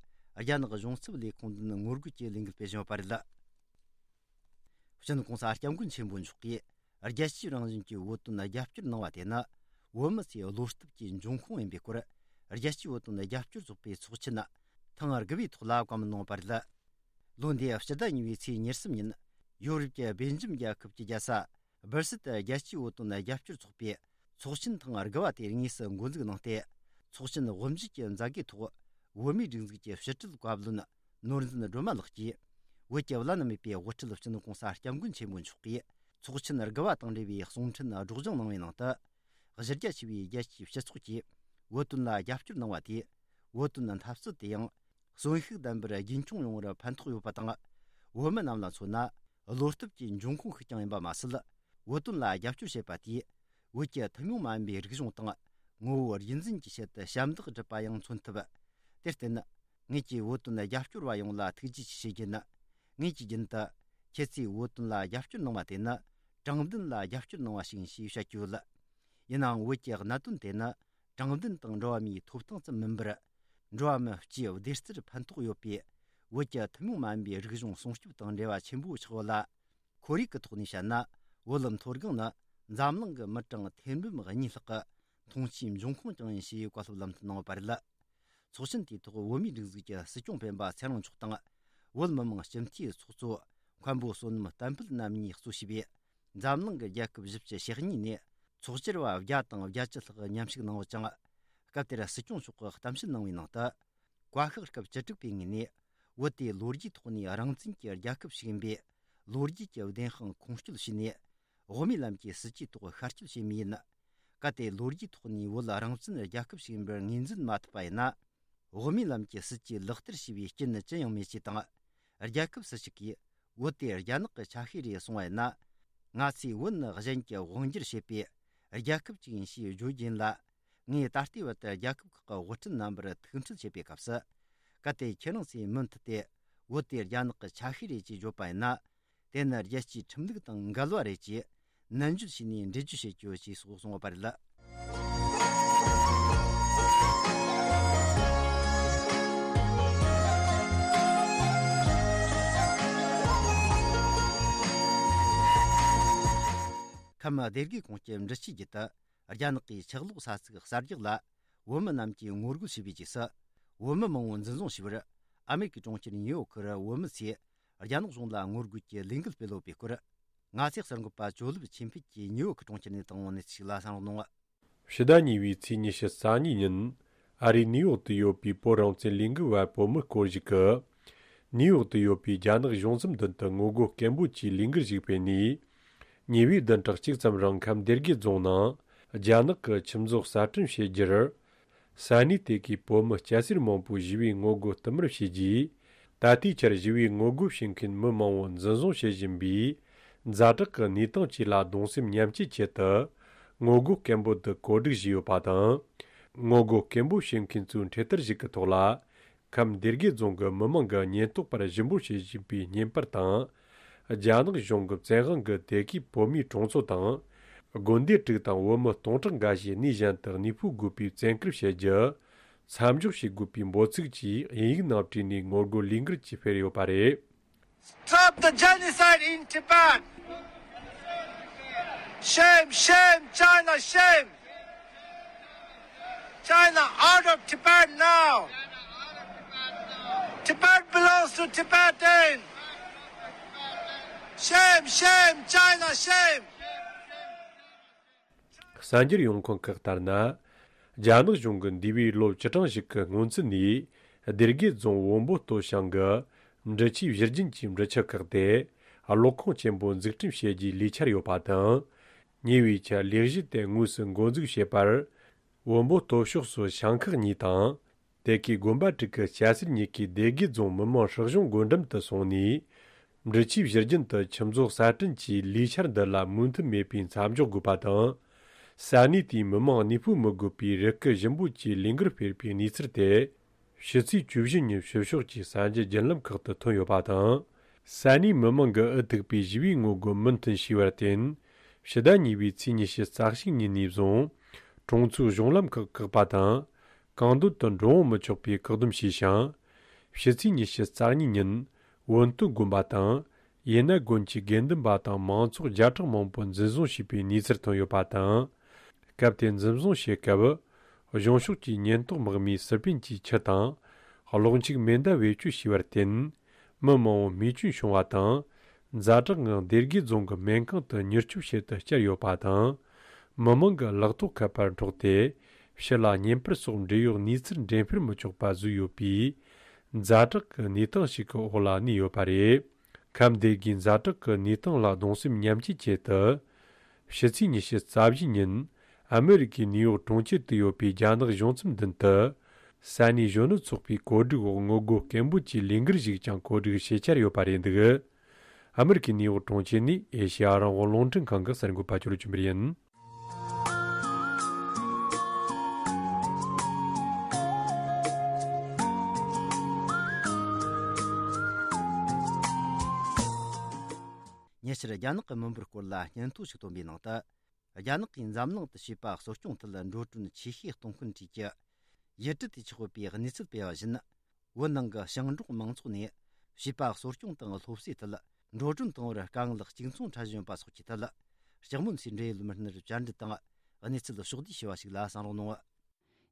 རྒྱ་ནག་གཞུང་ཚབ་ལས་ཁུངས་མདུན་ངོ་རྒོལ་གྱི་ལས་འགུལ་སྤེལ་བཞིན་ཡོད་པ་རེད། སྤྱི་ནོར་གོང་ས་སྐྱབས་མགོན་ཆེན་པོ་མཆོག་གིས་རྒྱལ་སྤྱིའི་རང་བཞིན་གྱི་བོད་དོན་རྒྱབ་སྐྱོར་གནང་བ་དེ་ནི་བོད་མི་ཚོའི་བློ་སྟོབས་ཀྱི་འབྱུང་ཁུངས་ཡིན་པའི་སྐོར། རྒྱལ་སྤྱིའི་བོད་དོན་རྒྱབ་སྐྱོར་ཚོགས་པའི་ཚོགས་ཆེན་ཐེངས་དགུ་པའི་ཐོག་ལ་བཀའ་མོལ་གནང་བ་རེད། ལོ་འདིའི་སྤྱི་ཟླ་གཉིས་པའི་ཚེས་ཉེར་གསུམ་ཉིན། ཡོ་རོབ་ཀྱི་སྦེལ་ཇམ་རྒྱལ་ཁབ་ཀྱི་རྒྱལ་ས་སྦར་སིལ་དུ་རྒྱལ་སྤྱིའི་བོད་དོན་རྒྱབ་སྐྱོར་ཚོགས་པའི་ཚོགས་ཆེན་ཐེངས་དགུ་པ་དེ་དངོས་སུ་འགོ་འཛུགས་གནང་སྟེ། ཚོགས་ཆེན་དབུ་འབྱེད་ཀྱི་མཛད་སྒོའི་ཐོག་བོད་མིའི་སྒྲིག་འཛུགས་ཀྱི་ཕྱི་དྲིལ་བཀའ་བློན་ནོར་འཛིན་སྒྲོལ་མ་ལགས་ཀྱིས། བོད་ཀྱི་བླ་ན་མེད་པའི་དབུ་ཁྲིད་སྤྱི་ནོར་གོང་ས་སྐྱབས་མགོན་ཆེན་པོ་མཆོག་གིས་ཚོགས་ཆེན་དགུ་པ་དང་འབྲེལ་བའི་གསུང་འཕྲིན་སྒྲོག་སྦྱང་གནང་བའི་ནང་དུ། གཞི་རྒྱ་ཆེ་བའི་རྒྱལ་སྤྱིའི་སྤྱི་ཚོགས་ཀྱིས་བོད་དོན་ལ་རྒྱབ་སྐྱོར་གནང་བ་དེས། བོད་དོན་འཐབ་རྩོད་དེ་ཡང་གསོན་ཤུགས་ལྡན་པར་རྒྱུན་འཁྱོངས་ཡོང་བར་ཕན་ཐོགས་ཡོད་པ་དང་། བོད་མི་རྣམས་ལ་མཚོན་ན། བློ་སྟོབས་ཀྱི་འབྱུང་ཁུངས་ཤིག་ཀྱང་ཡིན་པ་མ་ཟད། བོད་དོན་ལ་རྒྱབ་སྐྱོར་བྱེད་པ་དེས། བོད་ཀྱི་ཐུན་མོང་མ་ཡིན་པའི་རིག་གཞུང་དང་ངོ་བོ་རྒྱུན་འཛིན་གྱི་ཆེད་དུ་ཞབས་འདེགས་སྒྲུབ་པ་ཡང་མཚོན་ཐུབ། དེར་བརྟེན། ངེད་ཀྱིས་བོད་དོན་རྒྱབ་སྐྱོར་བ་ཡོངས་ལ་ཐུགས་རྗེ་ཆེ་ཞུ་རྒྱུ་ཡིན། ངེད་ཀྱིས་རྒྱུན་དུ། ཁྱེད་ཚོས་བོད་དོན་ལ་རྒྱབ་སྐྱོར་གནང་བ་དེ་ནི། དྲང་བདེན་ལ་རྒྱབ་སྐྱོར་གནང་བ་ཞིག་ཡིན་ཞེས་བཤད་ཀྱི་ཡོད། ཡིན་ནའང་། བོད་ཀྱི་གནད་དོན་དེ་ནི། དྲང་བདེན་དང་འགྲོ་བ་མིའི་ཐོབ་ཐང་ཙམ་མིན་པར། འགྲོ་བ་མི་སྤྱིའི་བདེ་རྩར་ཕན་ཐོགས་ཡོད་པའི། བོད་ཀྱི་ཐུན་མོང་མ་ཡིན་པའི་རིག་གཞུང་སྲུང་སྐྱོབ་དང་འབྲེལ་བ་ཆེན་པོ་ཆགས་ཡོད་ལ། ཁོར་ཡུག་གི་ཐོག་ནས་བཤད་ན། བོད་མཐོ་སྒང་ནི་འཛམ་གླིང་གི་མི་གྲངས་ཐེར་འབུམ་གཉིས་ལྷག་གི་འཐུང་ཆུའི་འབྱུང་ཁུངས་ཀྱང་ཡིན་ཞེས་བཀའ་སློབ་ལམ་སྟོན་གནང་ཡོད་པ་རེད། ཚོགས་ཆེན་དེའི་ཐོག་བོད་མིའི་སྒྲིག་འཛུགས་ཀྱི་སྲིད་སྐྱོང་སྤེན་པ་ཚེ་རིང་མཆོག་དང་། བོད་མི་མང་སྤྱི་འཐུས་ཚོགས་གཙོ་མཁན་པོ་བསོད་ནམས་བསྟན་འཕེལ་རྣམ་གཉིས་གཙོ་བྱས་པའི་འཛམ་གླིང་གི་རྒྱལ་ཁབ་བཞི་བཅུ་ཞེ་གཉིས་ནས་ཚོགས་བཅར་བ་བརྒྱ་དང་བརྒྱད་ཅུ་ལྷག་མཉམ་ཞུགས་གནང་ཡོད་ཅིང་། སྐབས་དེར་སྲིད་སྐྱོང་མཆོག་གིས་གཏམ་བཤད་གནང་བའི་ནང་དུ། བཀའ་ཤག་སྐབས་བཅུ་དྲུག་པའི་ངོས་ནས། བོད་དེ་ལོ་རྒྱུས་ཐོག་ནས་རང་བཙན་གྱི་རྒྱལ་ཁབ་ཞིག་ཡིན་པས། ལོ་རྒྱུས་ཀྱི་བདེན་དཔང་ཁུངས་སྐྱེལ་བྱས་ནས། དབུ་མའི་ལམ་གྱི་སྲིད་ཇུས་ཐོག་ཤར་སྐྱོད་བྱེད་མུས་ཡིན། གལ་ཏེ་ལོ་རྒྱུས་ཐོག་ནས་བོད་རང་བཙན་རྒྱལ་ཁབ་ཞིག་ཡིན་པར་ངོས་འཛིན་མ་ཐུབ་པ་ཡིན་ན། དབུ་མའི་ལམ་གྱི་སྲིད་ཇུས་ལག་བསྟར་བྱས་པའི་རྐྱེན་ནི་ཅི་ཡང་མེད་ཅེས་དང་། རྒྱལ་ཁབ་སུ་ཞིག་གིས་བོད་དེ་རྒྱ་ནག་གི་ཆ་ཤས་རེད་གསུངས་པ་ཡིན་ན། ང་ཚོས་བོད་ནི་གཞན་གྱི་དབང་སྒྱུར་བྱེད་པའི་རྒྱལ་ཁབ་ཅིག་ཡིན་ཞེས་བརྗོད་རྒྱུ་ཡིན་ལ། ངས་ད་ལྟའི་བར་དུ་རྒྱལ་ཁབ་ཁག་གི་དབུ་ཁྲིད་རྣམ་པར་ཐུག་འཕྲད་བྱེད་པའི་སྐབས་སུ། གལ་ཏེ་ཁྱེད་རང་ཚོས་མུ་མཐུད་དེ་བོད་དེ་རྒྱ་ནག་གི་ཆ་ཤས་རེད་ཅེས་བརྗོད་པ་ཡིན་ན། དེ་ནི་རྒྱལ་སྤྱིའི་ཁྲིམས་ལུགས་དང་འགལ་བ་རེད་ཅེས་ནན་བརྗོད་བྱས་ནས་འགྲེལ་བརྗོད་བྱེད་རྒྱུ་ཞེས་སོགས་གསུངས་པ་རེད། ཁམས་སྡེ་དགེ་ཁོངས་ཀྱི་འབྲི་ཆུའི་རྒྱུད་དུ། རྒྱ་ནག་གིས་ཆུ་གློག་ས་ཚིགས་གསར་རྒྱག་ལ་བོད་མི་རྣམས་ཀྱིས་ངོ་རྒོལ་བྱས་པའི་རྗེས་སུ། བོད་མི་མང་བོ་འཛིན་བཟུང་བྱས་པར། ཨ་མེ་རི་ཀའི་གྲོང་ཁྱེར་ཉིའུ་ཡོག་གི་བོད་མི་ཚོས་རྒྱ་ནག་གཞུང་ལ་ངོ་རྒོལ་གྱི་ལས་འགུལ་སྤེལ་ཡོད་པའི་སྐོར། ང་ཚོའི་གསར་འགོད་པ་ཇོ་ལིབ་ཆོས་འཕེལ་གྱིས་ཉིའུ་ཡོག་གི་གྲོང་ཁྱེར་ནས་བཏང་བའི་གནས་ཚུལ་ཞིག་ལ་གསན་རོགས་གནང་། ཕྱི་ཟླ་གཉིས་པའི་ཚེས་ཉི་ཤུ་རྩ་གཉིས་ཉིན། ཨ་རིའི་ནིའུ་ཡོག་ཏུ་ཡོད་པའི་བོད་རང་བཙན་ལས་འགུལ་བ་བོད་མི་སྐོར་ཞིག་གིས། ནིའུ་ཡོག་ཏུ་ཡོད་པའི་རྒྱ་ནག་གཞུང་ཚབ་མདུན་དུ་ངོ་རྒོལ་སྐད་འབོད་ཀྱི་ལས་འགུལ་ཞིག་སྤེལ་ནས། ཉེ་བའི་བདུན་ཕྲག་གཅིག་ཙམ་རིང་ཁམས་སྡེ་དགེ་རྫོང་ནང་རྒྱ་ནག་གི་ཆུ་མཛོད་གསར་སྐྲུན་བྱེད་རྒྱུར། ས་གནས་དེ་གའི་བོད་མི་སྐྱ་སེར་མང་པོས་ཞི་བའི་ངོ་རྒོལ་བསྟུད་མར་བྱས་རྗེས། ད་ལྟའི་ཆར་ཞི་བའི་ངོ་རྒོལ་བྱེད་མཁན་མི་མང་བོ་འཛིན་བཟུང་བྱེད་བཞིན་པའི་ཛ་དྲག་གི་གནས་སྟངས་བཅས་ལ་གདུང་སེམས་མཉམ་སྐྱེད་ཆེད་དུ། ངོ་རྒོལ་སྐད་འབོད་དུ་གོ་སྒྲིག་བྱས་ཡོད་པ་དང་། ངོ་རྒོལ་སྐད་འབོད་བྱེད་མཁན་ཚོའི་འཕྲེད་དར་ཞིག་གི་ཐོག་ལ། ཁམས་སྡེ་དགེ་རྫོང་གི་མི་མང་གིས་ཉེན་རྟོག་པར་ཞུ་འབོད་བྱེད་བཞིན་པའི་བརྙན་པར་དང་། རྒྱ་ནག་གཞུང་གི་བཙན་དབང་གིས་དེ་གའི་བོད་མིའི་གྲོང་ཚོ་དང་ དགོན་སྡེ་དྲུག་དང་བོད་མི་སྟོང་ཕྲག་འགའ་ཞིག་གནས་གཞན་དུ་གནས་སྤོ་དགོས་པའི་བཙན་བཀུར་བྱེད་རྒྱུ། མཚམས་འཇོག་བྱེད་དགོས་པའི་འབོད་ཚིག་བཅས་དབྱིན་ཡིག་ནང་བྲིས་ནས་ངོ་རྒོལ་ལས་འགུལ་གྱིས་སྤེལ་ཡོད་པ་རེད། Stop the genocide in Tibet! Shame, shame, China, shame! China, out of Tibet now! Tibet belongs to Tibetan! Shame, shame, China, shame! གསར་འགྱུར་ཡོང་ཁུངས་ཁག་ལྟར་ན། རྒྱ་ནག་གཞུང་གིས་འདས་པའི་ལོ་བཅུ་གྲངས་ཤིག་གི་སྔོན་ཚུད་ནས་སྡེ་དགེ་རྫོང་བོན་པོ་སྟོད་ཞང་གི་འབྲི་ཆུའི་བཞུར་རྒྱུན་གྱི་འབྲི་ཆུ་ཁག་དེ་གློག་ཁང་ཆེན་པོ་འཛུགས་སྐྲུན་བྱེད་རྒྱུའི་ལས་འཆར་ཡོད་པ་དང་། ཉེ་བའི་ཆར་ལས་གཞི་དེ་དངོས་སུ་འགོ་འཛུགས་བྱས་པར། བོན་པོ་སྟོད་ཕྱོགས་སུ་ཞང་ཁག་གཉིས་དང་། དེ་གའི་དགོན་པ་དྲུག་གི་སྐྱ་སེར་གཉིས་ཀས་སྡེ་དགེ་རྫོང་མི་དམངས་སྲིད་གཞུང་སྒོ་འགྲམ་དུ་སོང་ནས། འབྲི་ཆུའི་བཞུར་རྒྱུན་དུ་ཆུ་མཛོད་གསར་སྐྲུན་གྱི་ལས་འཆར་འདི་ལ་མོས་མཐུན་མེད་པའི་མཚམས་འཇོག་དགོས་པ་དང་། ས་གནས་དེའི་མི་དམངས་གནས་སྤོ་མི་དགོས་པའི་རི་སྐུད་ཞིམ་པོ་བཅས་ལས་འགུལ་སྤེལ་བའི་གནས་ཚུལ་དེ། ཕྱི་ཚེས་བཅུ་བཞི་ཉིན་ཕྱི་ཕྱོགས་ཀྱི་གསར་འགྱུར་བརྒྱུད་ལམ་ཁག་ཏུ་ཐོན་ཡོད་པ་དང་། ས་གནས་མི་དམངས་ཀྱིས་འུ་ཐུག་པའི་ཞི་བའི་ངོ་རྒོལ་མུ་མཐུད་བྱས་པར་བརྟེན། ཕྱི་ཟླ་གཉིས་པའི་ཚེས་ཉི་ཤུ་རྩ་གཅིག་ཉིན་ནས་བཟུང་། གྲོང་ཚོའི་གཞུང་ལམ་ཁག་བཀག་པ་དང་། གང་འདོད་དུ་འགྲོ་འོང་མི་ཆོག་པའི་བཀག་སྡོམ་བྱས་ཤིང་། ཕྱི་ཚེས་ཉི་ཤུ་རྩ་གཉིས་ཉིན། བོན་སྟོད་དགོན་པ་དང་། ཡེ་ན་དགོན་གྱི་དགེ་འདུན་པ་དང་མང་ཚོགས་བརྒྱ་ཕྲག་མང་པོ་འཛིན་བཟུང་བྱས་པའི་གནས་ཚུལ་ཐོན་ཡོད་པ་དང་། སྐབས་དེར་འཛིན་བཟུང་བྱེད་སྐབས། གཞུང་ཕྱོགས་ཀྱི་ཉེན་རྟོག་དམག་མིས་སི་པན་གྱི་ཆུ་དང་། གློག་འཁྱུག་མེ་མདའ་བེད་སྤྱོད་བྱས་པར་བརྟེན། མི་མང་པོ་རྨས་སྐྱོན་བྱུང་བ་དང་། ཛ་དྲག་ངང་སྡེ་དགེ་རྫོང་གི་སྨན་ཁང་དུ་མྱུར་སྐྱོབ་བྱེད་དུ་བསྐྱལ་ཡོད་པ་དང་། མི་མང་གི་ལག་ཐོགས་ཁ་པར་འཕྲོག་སྟེ། ཕྱི་ལ་བརྙན་པར་སོགས་འབྲེལ་ཡོད་གནས་ཚུལ་འགྲེམས་སྤེལ་མི་ཆོག་པ་བཟོས་ཡོད་པའི། ཛ་དྲག་གི་གནས་སྟངས་ཤིག་གི་འོག་ལ་གནས་ཡོད་པ་རེད། ཁམས་སྡེ་དགེའི་ཛ་དྲག་གི་གནས་སྟངས་ལ་གདུང་སེམས་མཉམ་སྐྱེད་ཆེད་དུ། ཕྱི་ཚེས་ཉི་ཤུ་རྩ་བཞི་ཉིན། ཨ་མི་རི་ཀའི་ནིའུ་ཡོག་གྲོང་ཁྱེར་དུ་ཡོད་པའི་རྒྱ་ནག་གཞུང་ཚབ་མདུན་དུ། ས་གནས་གཞོན་ནུ་ཚོགས་པའི་གོ་སྒྲིག་འོག་ངོ་རྒོལ་སྐད་འབོད་ཀྱི་ལས་འགུལ་ཞིག་ཀྱང་གོ་སྒྲིག་བྱེད་འཆར་ཡོད་པ་རེད་འདུག་ཨ་མི་རི་ཀའི་ནིའུ་ཡོག་གྲོང་ཁྱེར་ནས་ཨེ་ཤེ་ཡ་རང་དབང་རླུང་འཕྲིན་ཁང་གི་གསར་འགོད་པ་ཅོ་ལོ་ཆོས་འཕེལ་ཡིན། ཉེ་ཆར་རྒྱ་ནག་གི་མི་འབོར་སྐོར་ལ་སྙན་ཐོ་ཞིག་བཏོན་པའི་ནང་དུ། རྒྱ་ནག་གིས་འཛམ་གླིང་དུ་བྱིས་པ་གསོ་སྐྱོང་ཐད་འགྲོ་གྲོན་ཆེ་ཤོས་གཏོང་མཁན་བཅས་ཀྱི་ཡུལ་གྲུ་དེ་ཆགས་ཡོད་པའི་གནས་ཚུལ་སྤེལ་བ་བཞིན། བོད་ནང་གི་ཞིང་འབྲོག་མང་ཚོགས་ནས་བྱིས་པ་གསོ་སྐྱོང་དང་སློབ་གསོའི་ཐད་འགྲོ་གྲོན་གཏོང་བར་དཀའ་ངལ་གཅིག་མཚུངས་འཕྲད་བཞིན་ཡོད་པ་སོགས་ཀྱི་ཐད། ལྕགས་མོ་མཚོའི་འབྲེལ་ཡོད་མི་སྣར་བཅར་འདྲི་དང་གནས་ཚུལ་ཕྱོགས་བསྡུས་ཞུ་བ་ཞིག་ལ་གསན་རོགས་གནང་།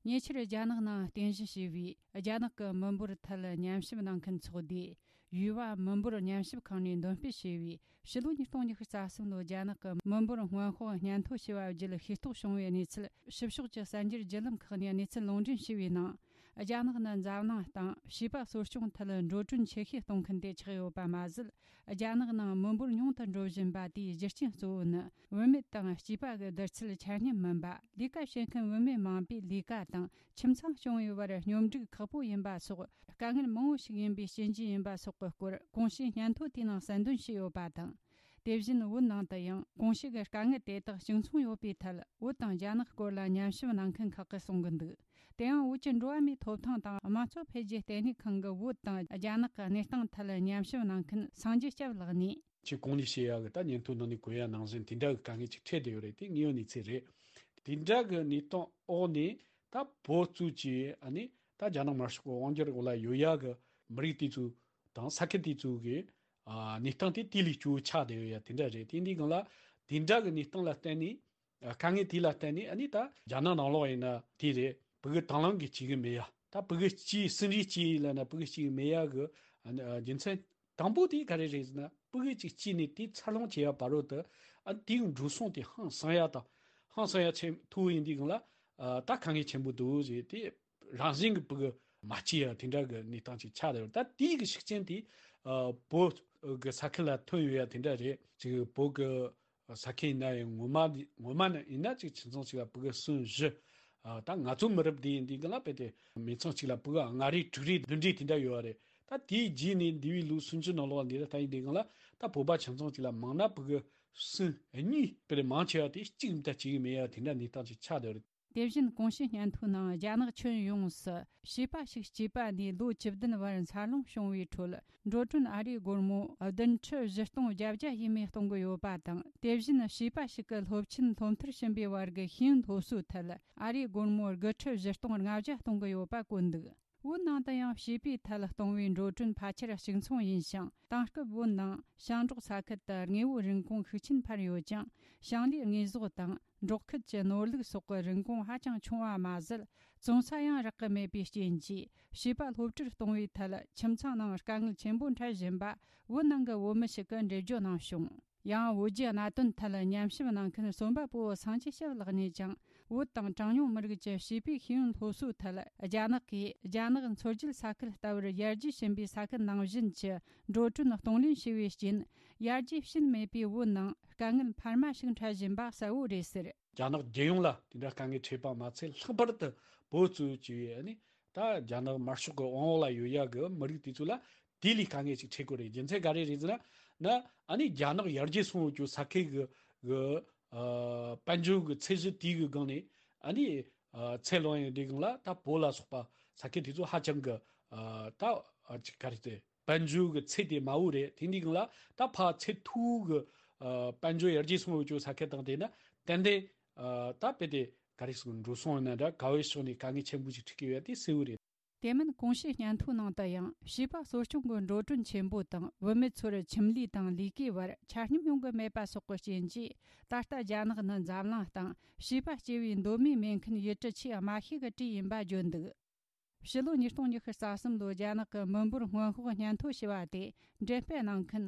ཉེ་ཆར་རྒྱ་ནག་ནང་རྟེན་གཞི་བྱས་པའི་རྒྱ་ནག་གི་མི་འབོར་ཐད་ཉམས་ཞིབ་གནང་མཁན་ཚོགས་སྡེ། ཡུས་ཝ་མི་འབོར་ཉམས་ཞིབ་ཁང་ནས་འདོན་སྤེལ་བྱས་པའི་ཕྱི་ལོ་ཉིས་སྟོང་ཉི་ཤུ་རྩ་གསུམ་ལོའི་རྒྱ་ནག་གི་མི་འབོར་སྔོན་དཔག་སྙན་ཐོ་ཞེས་པ་བརྒྱུད་ཤེས་རྟོགས་བྱུང་བའི་གནས་ཚུལ། ཕྱི་ཕྱོགས་ཀྱི་གསར་འགྱུར་བརྒྱུད་ལམ་ཁག་ནས་གནས་ཚུལ་ལུང་འདྲེན་བྱས་པའི་ནང་། རྒྱ་ནག་ནི་འཛམ་གླིང་སྟེང་བྱིས་པ་གསོ་སྐྱོང་ཐད་འགྲོ་གྲོན་ཆེ་ཤོས་གཏོང་མཁན་དེ་ཆགས་ཡོད་པ་མ་ཟད། རྒྱ་ནག་ནང་མི་འབོར་ཉུང་དུ་འགྲོ་བཞིན་པ་དེའི་རྒྱུ་རྐྱེན་གཙོ་བོ་ནི། བུད་མེད་དང་བྱིས་པ་གི་བསྡུར་ཚད་ཆ་སྙོམས་མིན་པ། ལས་ཀ་བྱེད་མཁན་བུད་མེད་མང་པོས་ལས་ཀ་དང་ཁྱིམ་ཚང་སྐྱོང་བའི་བར་སྙོམས་སྒྲིག་ཁག་པོ་ཡིན་པ་སོགས། དཀའ་ངལ་མང་བོ་ཞིག་ཡིན་པའི་རྐྱེན་གྱིས་ཡིན་པ་སོགས་ཀྱི་སྐོར་གོང་ཞུས་སྙན་ཐོ་དེའི་ནང་གསལ་འདོན་བྱས་ཡོད་པ་དང་། དེ་བཞིན་བོད་ནང་དུ་ཡང་གོང་ཞུས་ཀྱི་དཀའ་ངལ་དེ་དག་གཅིག་མཚུངས་ཡོད་པའི་ཐད། བོད་དང་རྒྱ་ནག་སྐོར་ལ་ཉམས་ཞིབ་གནང་མཁན་ཁག་གིས་གསུང་གི་འདུག་དེ་ཡང་བོད་ཀྱི་འགྲོ་བ་མིའི་ཐོབ་ཐང་དང་དམངས་གཙོ་འཕེལ་རྒྱས་ལྟེ་གནས་ཁང་གི་བོད་དང་རྒྱ་ནག་གི་གནས་སྟངས་ཐད་ཉམས་ཞིབ་གནང་མཁན་སངས་རྒྱས་སྐྱབས་ལགས་ནས། ཁྱེད་གོང་ནས་བཤད་ཡག་གི་ད་སྙན་ཐོ་ནང་ནས་གོ་ཡ་ནང་བཞིན་དེ་འདྲ་གི་དཀའ་ངལ་ཅིག་འཕྲད་བསྡད་ཡོད་རེད། དེ་དངོས་ཡོད་གནས་ཚུལ་རེད། དེ་འདྲ་གི་གནས་སྟངས་འོག་ནས་ད་བོད་གཙོས་ཀྱི་ཨ་ནི་ད་རྒྱ་ནག་དམར་ཤོག་གི་དབང་སྒྱུར་འོག་ལ་ཡོད་ཡག་གི་མི་རིགས་དེ་ཚོ་དང་ས་ཁུལ་དེ་ཚོ་གི་ཨ་གནས་སྟངས་དེ་དེ་ལས་སྐྱོ་བོ་ཆགས་བསྡད་ཡོད་ཡ་དེ་འདྲ་རེད། དེ་འདི་སྒང་ལ་དེ་འདྲ་གི་གནས་སྟངས་ལ་བརྟེན་ནས། དཀའ་ངལ་དེ་ལ་བརྟེན་ནས་ཨ་ནི་ད་རྒྱ་ནག་ནང་ལོགས་ཡིན་ན་དེ་རེད། ཕྲུ་གུ་དང་བླངས་ཀྱིས་སྐྱེ་གི་མེད་ཡ། ད་ཕྲུ་གུ་སྐྱེས་སུན་རེ་སྐྱེས་ལབ་ན་ཕྲུ་གུ་སྐྱེ་གི་མེད་ཡ་གི་ཨ་ནི་རྒྱུ་མཚན་དང་པོ་དེ་ག་རེ་རེད་ཟེར་ན། ཕྲུ་གུ་གཅིག་སྐྱེས་ནས་དེ་འཚར་ལོངས་བྱེད་ཡ་བར་དུ་ཨ་ནི་དེའི་འགྲོ་སོང་དེ་ཧང་སང་ཡ་དང་ཧང་སང་ཡ་ཆེན་མཐོ་བོ་ཡིན་དུས་སྒང་ལ་ད་དཀའ་ངལ་ཆེན་པོ་འདུག་ཟེར། དེ་རང་བཞིན་གྱི་ཕྲུ་གུ་མ་སྐྱེས་ཡ་དེ་འདྲ་གི་གནས་སྟངས་ཅིག་ཆགས་བསྡད་ཡོད། ད་དེའི་གི་ཤུགས་རྐྱེན་དེ་བོད་གི་ས་ཁུལ་ལ་ཐོན་ཡོད་ཡ་དེ་འདྲ་རེད། ཅིག་བོད་གི་ས་ཁུལ་ཡིན་ན་ཡང་ངོ་མ་ངོ་མ་ནི་ཡིན་ན་ཅིག་ཁྱིམ་ཚང་གཅིག་ལ་ཕྲུ་གུ་གསུམ་བཞི། ཨ་ད་ང་ཚོ་མི་རབས་འདི་ཡིན་དུས་སྒང་ལ་དཔེ་དེ་མི་ཚང་གཅིག་ལ་ཕྲུ་གུ་ལྔ་རེ་དྲུག་རེ་བདུན་རེ་དེ་འདྲ་ཡོད་རེད། ད་དེའི་རྗེས་ནས་འདས་པའི་ལོ་སུམ་ཅུ་ནང་ལོགས་འདི་ལ་ད་ཡིན་དུས་སྒང་ལ་ད་བོད་པ་ཁྱིམ་ཚང་གཅིག་ལ་མང་ན་ཕྲུ་གུ་གསུམ་གཉིས་དཔེ་དེ་མང་ཆེ་བ་དེ་གཅིག་མི་ད་གཅིག་མེད་ཡ་དེ་འདྲ་གནས་སྟངས་ཅིག་ཆགས་བསྡད་ཡོད་རེད། དེ་བཞིན་གོང་ཞུས་སྙན་ཐོའི་ནང་རྒྱ་ནག་ཁྱོན་ཡོངས་སུ་བྱིས་པ་ཞིག་སྐྱེས་པ་ནས་ལོ་བཅུ་བདུན་བར་འཚར་ལོངས་བྱུང་བའི་ཁྲོད། འགྲོ་གྲོན་ཨ་རིའི་སྒོར་མོ་བདུན་ཁྲི་བཞི་སྟོང་བརྒྱད་བརྒྱ་ཡས་མས་གཏོང་གི་ཡོད་པ་དང་། དེ་བཞིན་བྱིས་པ་ཞིག་གི་སློབ་ཆེན་སློབ་མཐར་ཕྱིན་པའི་བར་གྱི་ཤེས་ཡོན་སློབ་གསོའི་ཐད་ཨ་རིའི་སྒོར་མོ་དགུ་ཁྲི་བཞི་སྟོང་ལྔ་བརྒྱ་གཏོང་གི་ཡོད་པ་བཀོད་འདུག་བོད་ནང་དུ་ཡང་བྱིས་པའི་ཐད་གཏོང་བའི་འགྲོ་གྲོན་ཕལ་ཆེར་གཅིག་མཚུངས་ཡིན་ཞིང་། དེང་སྐབས་བོད་ནང་ཞིང་འབྲོག་ས་ཁུལ་དུ་དངོས་པོའི་རིན་གོང་ཤུགས་ཆེན་འཕར་ཡོད་ཀྱང་། ཞིང་ལས་དངོས་ཟོག་དང་འབྲོག་ཁུལ་གྱི་ནོར་ལུག་སོགས་ཀྱི་རིན་གོང་ཧ་ཅང་ཆུང་བ་མ་ཟད། བཙོང་ས་ཡང་རག་གི་མེད་པའི་རྐྱེན་གྱིས། བྱིས་པ་སློབ་གྲྭར་གཏོང་བའི་ཐད་ཁྱིམ་ཚང་ནང་དཀའ་ངལ་ཆེན་པོ་འཕྲད་བཞིན་པ་བོད་ནང་གི་བོད་མི་ཞིག་གིས་འགྲེལ་བརྗོད་གནང་བྱུང་། ཡང་། བོད་ཀྱི་གནད་དོན་ཐད་ཉམས་ཞིབ་གནང་མཁན་རྩོམ་པ་པོ་སངས་རྒྱས་ཞབས་ལགས་ནས་ཀྱང་། བོད་དང་གྲངས་ཉུང་མི་རིགས་ཀྱི་བྱིས་པའི་ཤེས་ཡོན་སློབ་གསོའི་ཐད། རྒྱ་ནག་གིས་རྒྱ་ནག་མཚོ་རྒྱུད་ས་ཁུལ་ལྟ་བུར་ཡར་རྒྱས་ཕྱིན་པའི་ས་ཁུལ་ནང་བཞིན་གྱི་འགྲོ་གྲོན་གཏོང་ལེན་བྱས་པའི་རྐྱེན། ཡར་རྒྱས་ཕྱིན་མེད་པའི་བོད་ནང་དཀའ་ངལ་འཕར་མ་ཞིག་འཕྲད་བཞིན་པ་གསལ་བོ་རེད་ཟེར། རྒྱ་ནག་རྒྱལ་ཡོངས་ལ་དེ་འདྲ་དཀའ་ངལ་འཕྲད་པ་མ་ཚད། ལྷག་པར་དུ་བོད་གཙོས་བྱས་པའི་ཨ་ནི་ད་རྒྱ་ནག་དམར་ཤོག་གི་དབང་འོག་ལ་ཡོད་ཡ་གི་མི་རིགས་དེ་ཚོ་ལ་དེ་ལས་དཀའ་ངལ་ཅིག་འཕྲད་གི་རེད། རྒྱུ་མཚན་ག་རེ་རེད་ཟེར་ན། ན་ཨ་ནི་རྒྱ་ནག་ཡར་རྒྱས་སོང་ཡོད་རྒྱུ་ས་ཁུལ་གི་གི་ཨ་དཔལ་འབྱོར་གི་ཚད་གཞི་དེ་གི་སྒང་ནས་ཨ་ནི་ཨ་ཚད་ལོན་ཡོང་དུས་སྒང་ལ། ད་བོད་ལ་སོགས་པ་ས་ཁུལ་དེ་ཚོ་ཧ་ཅང་གི་ཨ་ད་ཨ་ཅིག་ག་རེ་ཟེར། དཔལ་འབྱོར་གི་ཚད་དེ་དམའ་བོ་རེད། དེ་འདི་སྒང་ལ་ད་ཕར་ཚད་མཐོ་བོ་གི་ཨ་དཔལ་འབྱོར་ཡར་རྒྱས་སོང་ཡོད་རྒྱུ་ས་ཁུལ་དང་། དེ་ན་ཏན་ཏན་ཨ་ད་དཔེ་དེ་ག་རེ་ཟེར། འགྲོ་སོང་ཡིན་ན་འདྲ་ག་བའི་ཕྱོགས་ནས་དཀའ་ངལ་ཆེན་པོ་ཞིག་འཕྲད་ཀྱི་ཡོད་དེ་གསལ་བོ་རེད། དེ་མིན་གོང་ཞུས་སྙན་ཐོའི་ནང་དུ་ཡང་། བྱིས་པ་གསོ་སྐྱོང་གི་འགྲོ་གྲོན་ཆེན་པོ་དང་། བུད་མེད་ཚོར་ཁྱིམ་ལས་དང་ལས་ཀའི་བར་ཆ་སྙོམས་ཡོང་གི་མེད་པ་སོགས་ཀྱི་རྐྱེན་གྱིས། ད་ལྟ་རྒྱ་ནག་ནི་འཛམ་གླིང་སྟེང་བྱིས་པ་སྐྱེ་བའི་གདོད་མའི་སྨན་ཁང་ཡུལ་གྲུ་ཆེས་དམའ་ཤོས་ཀྱི་གྲས་ཡིན་པ་བརྗོད་འདུག་ཕྱི་ལོ་ཉིས་སྟོང་ཉི་ཤུ་རྩ་གསུམ་ལོར་རྒྱ་ནག་གི་མི་འབོར་སྔོན་དཔག་སྙན་ཐོ་ཞེས་པ་དེ་འགྲེམས་སྤེལ་གནང་མཁན་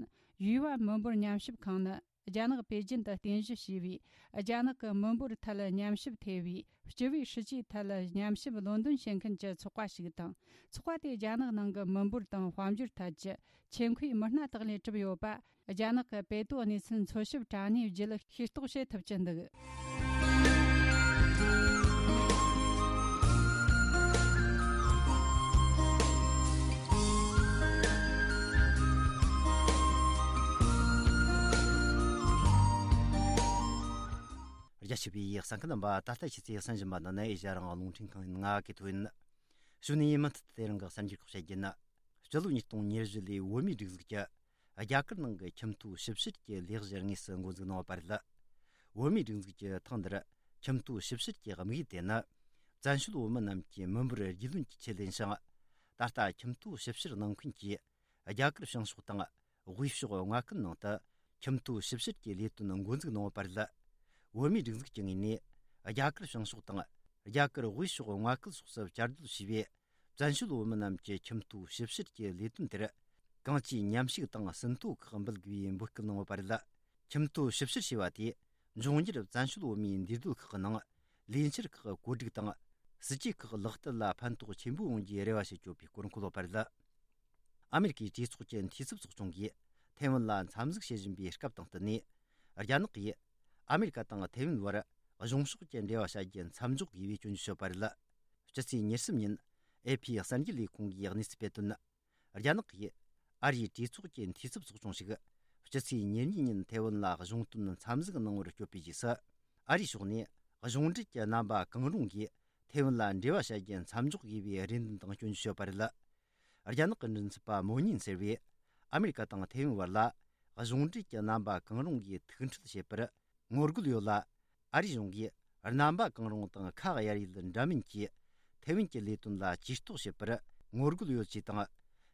ཡུས་ཝ་མི་འབོར་ཉམས་ཞིབ་ཁང་ནི། རྒྱ་ནག་པེ་ཅིན་དུ་རྟེན་གཞི་བྱས་པའི་རྒྱ་ནག་གི་མི་འབོར་ཐད་ཉམས་ཞིབ་ཐེབས་པའི་སྤྱི་པའི་སྲིད་ཇུས་ཐད་ཉམས་ཞིབ་ལོན་འདོན་བྱེད་མཁན་གྱི་ཚོགས་པ་ཞིག་དང་། ཚོགས་པ་དེས་རྒྱ་ནག་ནང་གི་མི་འབོར་དང་དཔལ་འབྱོར་ཐད་ཀྱི་ཆེད་མཁོའི་མི་སྣ་དག་ལས་གྲུབ་ཡོད་པ། རྒྱ་ནག་གི་པེ་ཏོ་གནས་ཚུལ་འཚོལ་ཞིབ་དྲ་གནས་བརྒྱུད་ཤེས་རྟོགས་བྱེད་ཐུབ་ཀྱི་འདུག་རྒྱ་ཆེ་བའི་གསན་མཁན་རྣམ་པ། ད་ལྟ་ཁྱེད་ཚོས་གསན་བཞིན་པ་འདི་ནི་ཨེ་ཤ་ཡ་རང་དབང་རླུང་འཕྲིན་ཁང་ཡིན། ང་གི་ཐོ་ཡིན། གཞུག་ནས་མུ་མཐུད་དེ་རིང་གི་གསར་འགྱུར་ཁག་བཤད་རྒྱུ་ཡིན། སྤྱི་ལོ་ཉིས་སྟོང་ཉེར་བཞི་ལོའི་བོད་མིའི་སྒྲིག་འཛུགས་ཀྱིས་རྒྱ་གར་ནང་གི་ཁྱིམ་ཐོའི་ཞིབ་བཤེར་གྱི་ལས་གཞི་དངོས་སུ་འགོ་འཛུགས་གནང་བ་རེད། བོད་མིའི་སྒྲིག་འཛུགས་ཀྱིས་ཐེངས་འདིར་ཁྱིམ་ཐོའི་ཞིབ་བཤེར་གྱི་དམིགས་ཡུལ་དེ་ནི། བཙན་བྱོལ་བོད་མི་རྣམས་ཀྱི་མི་འབོར་རྒྱུས་ལོན་གྱི་ཆེད་ཡིན་ཞིང་། ད་ལྟ་ཁྱིམ་ཐོའི་ཞིབ་བཤེར་གནང་མཁན་གྱིས་རྒྱ་གར་བྱང་ཕྱོགས་དང་དབུས་ཕྱོགས་མངའ་ཁུལ་ནང་དུ་ཁྱིམ་ཐོའི་ཞིབ་བཤེར་གྱི་ལས་དོན་འགོ་འཛུགས་གནང་བ་རེད། བོད་མིའི་སྒྲིག་འཛུགས་ཀྱི་ངོས་ནས་རྒྱ་གར་བྱང་ཕྱོགས་དང་རྒྱ་གར་དབུས་ཕྱོགས་མངའ་ཁུལ་སོགས་སུ་བཅའ་སྡོད་བྱས་པའི་བཙན་བྱོལ་བོད་མི་རྣམས་ཀྱི་ཁྱིམ་ཐོའི་ཞིབ་བཤེར་གྱི་ལས་དོན་དེར། གང་ཅིའི་མཉམ་ཞུགས་དང་ཟིན་ཐོ་ཁག་འབུལ་དགོས་པའི་འབོད་སྐུལ་གནང་བ་རེད། ཁྱིམ་ཐོའི་ཞིབ་བཤེར་བྱས་པ་དེས་འབྱུང་འགྱུར་བཙན་བྱོལ་བོད་མིའི་འདུས་སྡོད་ཁག་གི་ནང་ལས་འཆར་ཁག་བཀོད་སྒྲིག་དང་། སྲིད་ཇུས་ཁག་ལག་བསྟར་ལ་ཕན་ཐོགས་ཆེན་པོ་ཡོང་རྒྱུའི་རེ་བ་བྱེད་ཆོག་པའི་སྐོར་འཁོད་ཡོད་པ་རེད། ཨ་མེ་རི་ཀའི་གྲོས་ཚོགས་ཀྱི་འཐུས་ཚབ་ཚོགས་ཆུང་གིས་ཐའེ་ཝན་ལ་འཚམས་གཟིགས་བྱེད་བཞིན་པའི་སྐབས་དང་བསྟུན་ནས། རྒྱ་ནག་གིས་ཨ་མེ་རི་ཀ་དང་ཐའེ་ཝན་བར་གཞུང་ཕྱོགས་ཀྱི་འབྲེལ་བ་བྱ་རྒྱུ་མཚམས་འཇོག་དགོས་པའི་སྐྱོན་བརྗོད་བྱས་པ་རེད། སྤྱི་ཚེས་ཉེར་གསུམ་ཉིན་ཨེ་ཕི་གསར་འགྱུར་ལས་ཁུངས་ཀྱིས་གནས་ཚུལ་སྤེལ་དོན། རྒྱ་ནག་གིས་ཨ་རིའི་གྲོས་ཚོགས་ཀྱི་འཐུས་ཚབ་ཚོགས་ཆུང་ཞིག་སྤྱི་ཚེས་ཉེར་གཉིས་ཉིན་ཐའེ་ཝན་ལ་གཞུང་དོན་འཚམས་གཟིགས་གནང་བར་བསྐྱོད་པའི་རྗེས་སུ། ཨ་རིའི་ཕྱོགས་ནས་གཞུང་འབྲེལ་གྱི་རྣམ་པ་གང་རུང་གིས་ཐའེ་ཝན་ལ་འབྲེལ་བ་བྱ་རྒྱུ་མཚམས་འཇོག་དགོས་པའི་རེ་འདུན་དང་སྐྱོན་བརྗོད་བྱས་པ་རེད། རྒྱ་ནག་གི་མགྲིན་ཚབ་པ་མོ་ཉིན་ཟེར་བས། ཨ་མེ་རི་ཀ་དང་ཐའེ་ཝན་བར་ལ་གཞུང་འབྲེལ་གྱི་རྣམ་པ་གང་རུང་གིས་ཐུགས་འཕྲད་བྱེད་པར་ངོ་རྒོལ་ཡོད་ལ། ཨ་རིའི་གཞུང་གིས་རྣམ་པ་གང་རུང་དང་ཁ་གཡར་ཡུལ་འདྲ་མིན་གྱིས་ཐའེ་ཝན་གྱི་ལས་དོན་ལ་ཇུས་གཏོགས་བྱེད་པར་ངོ་རྒོལ་ཡོད་ཅེས་དང་།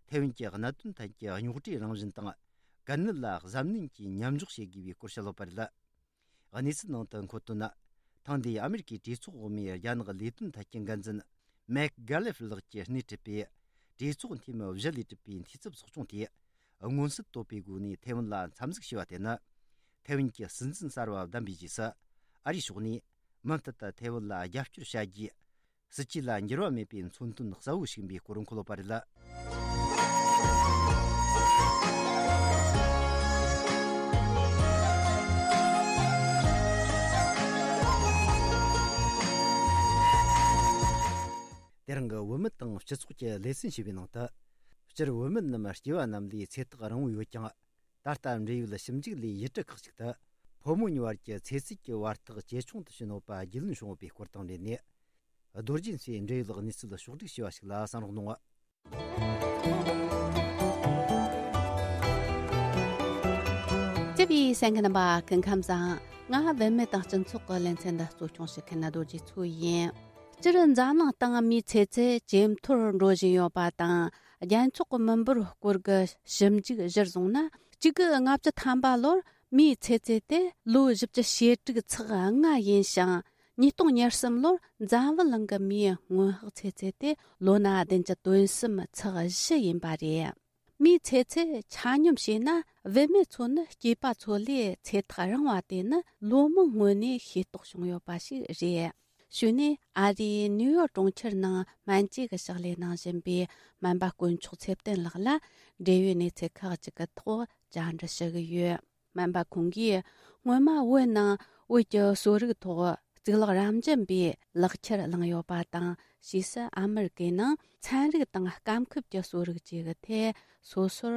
ཐའེ་ཝན་གྱི་གནད་དོན་ཐད་ཀྱི་རྙོག་དྲའི་རང་བཞིན་དང་། གལ་གནད་ལ་གཟབ་ནན་གྱིས་མཉམ་འཇོག་བྱེད་དགོས་པའི་སྐོར་བཤད་ཡོད་པ་རེད། གནས་ཚུལ་ནང་དུ་འཁོད་དོན། ཐེངས་འདིའི་ཨ་མེ་རི་ཀའི་གྲོས་ཚོགས་འོག་མའི་རྒྱ་ནག་ལས་དོན་ཐད་ཀྱི་འགན་འཛིན་མེག་གྷ་ལེ་ཧྥི་ལགས་ཀྱིས་སྣེ་ཁྲིད་པའི་གྲོས་ཚོགས་འཐུས་མི་བཞི་ལས་གྲུབ་པའི་འཐུས་ཚབ་ཚོགས་ཆུང་དེས། མངོན་གསལ་དོད་པའི་སྒོ་ནས་ཐའེ་ཝན་ལ་འཚམས་གཟིགས་བྱས་པ་དེ་ནི། ཐའེ་ཝན་གྱི་སྲིད་འཛིན་གསར་བ་བདམས་པའི་རྗེས་སུ། ཨ་རིའི་ཕྱོགས་ནས་མུ་མཐུད་དུ་ཐའེ་ཝན་ལ་རྒྱབ་སྐྱོར་བྱ་རྒྱུའི་སྲིད་ཇུས་ལ་འགྱུར་བ་མེད་པའི་མཚོན་དོན་གསལ་བོ་ཞིག་ཡིན་པའི་སྐོར་འཁོད་ཡོད་པ་རེད། དེ་རིང་གི་བོད་མི་དང་སྤྱི་ཚོགས་ཀྱི་ལེ་ཚན་ཞེས་པའི་ནང་དུ། སྤྱིར་བོད་མི་རྣམས་སྐྱེ་བ་རྣམས་ལས་ཚེ་ཐག་རིང་བོ་ཡོད་ཀྱང་། ད་ལྟ་འབྲེལ་ཡོད་ཞིབ་འཇུག་ལས་ཡུལ་གྲུ་ཁག་ཅིག་ཏུ། ཕོ་ ཕོ་མོ་གཉིས་བར་གྱི་ཚེ་ཚད་ཀྱི་བར་ཐག་ཇེ་ཆུང་དུ་ཕྱིན་ཡོད་པ་རྒྱུས་ལོན་བྱུང་ཡོད་པའི་སྐོར་དང་འབྲེལ་ནས། རྡོ་རྗེ་མཚོས་འབྲེལ་ཡོད་གནས་ཚུལ་ཕྱོགས་བསྒྲིགས་བྱས་པ་ཞིག་ལ་གསན་རོགས་གནང་། སྐྱབས་ཡིག་གསན་མཁན་རྣམ་པ་སྐུ་ཁམས་བཟང་། ང་བུད་མེད་དང་སྤྱི་ཚོགས་ཀྱི་ལེ་ཚན་འདི་གཙོ་སྐྱོང་བྱེད་མཁན་རྡོ་རྗེ་མཚོ་ཡིན། སྤྱིར་འཛམ་གླིང་སྟེང་མིའི་ཚེ་ཚད་ཇེ་མཐོར་འགྲོ་བཞིན་ཡོད་པ་དང་། རྒྱལ་ཚོགས་ཀྱི་མི་འབོར་སྐོར་གྱི་ཞིབ་འཇུག་གཞིར་བཟུང་ན། གཅིག་དགུ་ལྔ་བཅུ་ཐམ་པ་ལོར་མིའི་ཚེ་ཚད་དེ་ལོ་བཞི་བཅུ་ཞེ་དྲུག་ཚེག་ལྔ་ཡིན་ཞིང་། ཉིས་སྟོང་ཉེར་གསུམ་ལོར་འཛམ་བུ་གླིང་གི་མིའི་སྔོན་དཔག་ཚེ་ཚད་དེ་ལོ་ན་བདུན་བཅུ་དོན་གསུམ་ཚེག་བཞི་ཡིན་པ་རེད། མིའི་ཚེ་ཚད་ཆ་སྙོམས་བྱས་ན། བུད་མེད་ཚོ་ནི་སྐྱེས་པ་ཚོ་ལས་ཚེ་ཐག་རིང་བ་དེ་ནི་ལོ་མང་སྔོན་ནས་ཤེས་རྟོགས་བྱུང་ཡོད་པ་ཞིག་རེད། གཞུག་ནས་ཨ་རིའི་ནིའུ་ཡོག་གྲོང་ཁྱེར་ནང་སྨན་བཅོས་ཀྱི་ཕྱག་ལས་གནང་བཞིན་པའི་སྨན་པ་དཀོན་མཆོག་ཚེ་བརྟན་ལགས་ལ། འབྲེལ་ཡོད་གནས་ཚུལ་ཁག་ཅིག་གི་ཐོག་བཅར་འདྲི་ཞུ་གི་ཡོད། སྨན་པ་ཁོང་གིས། སྔོན་མ་བོད་ནང་བོད་ཀྱི་གསོ་རིག་ཐོག་གཙུག་ལག་རབ་འབྱམས་པའི་ལག་ཁྱེར་བླངས་ཡོད་པ་དང་། ཕྱིས་སུ་ཨ་མི་རི་ཀའི་ནང་ཚན་རིག་དང་སྐམ་ཁུལ་གྱི་གསོ་རིག་བཅས་ཀྱི་ཐད་སོ་སོར་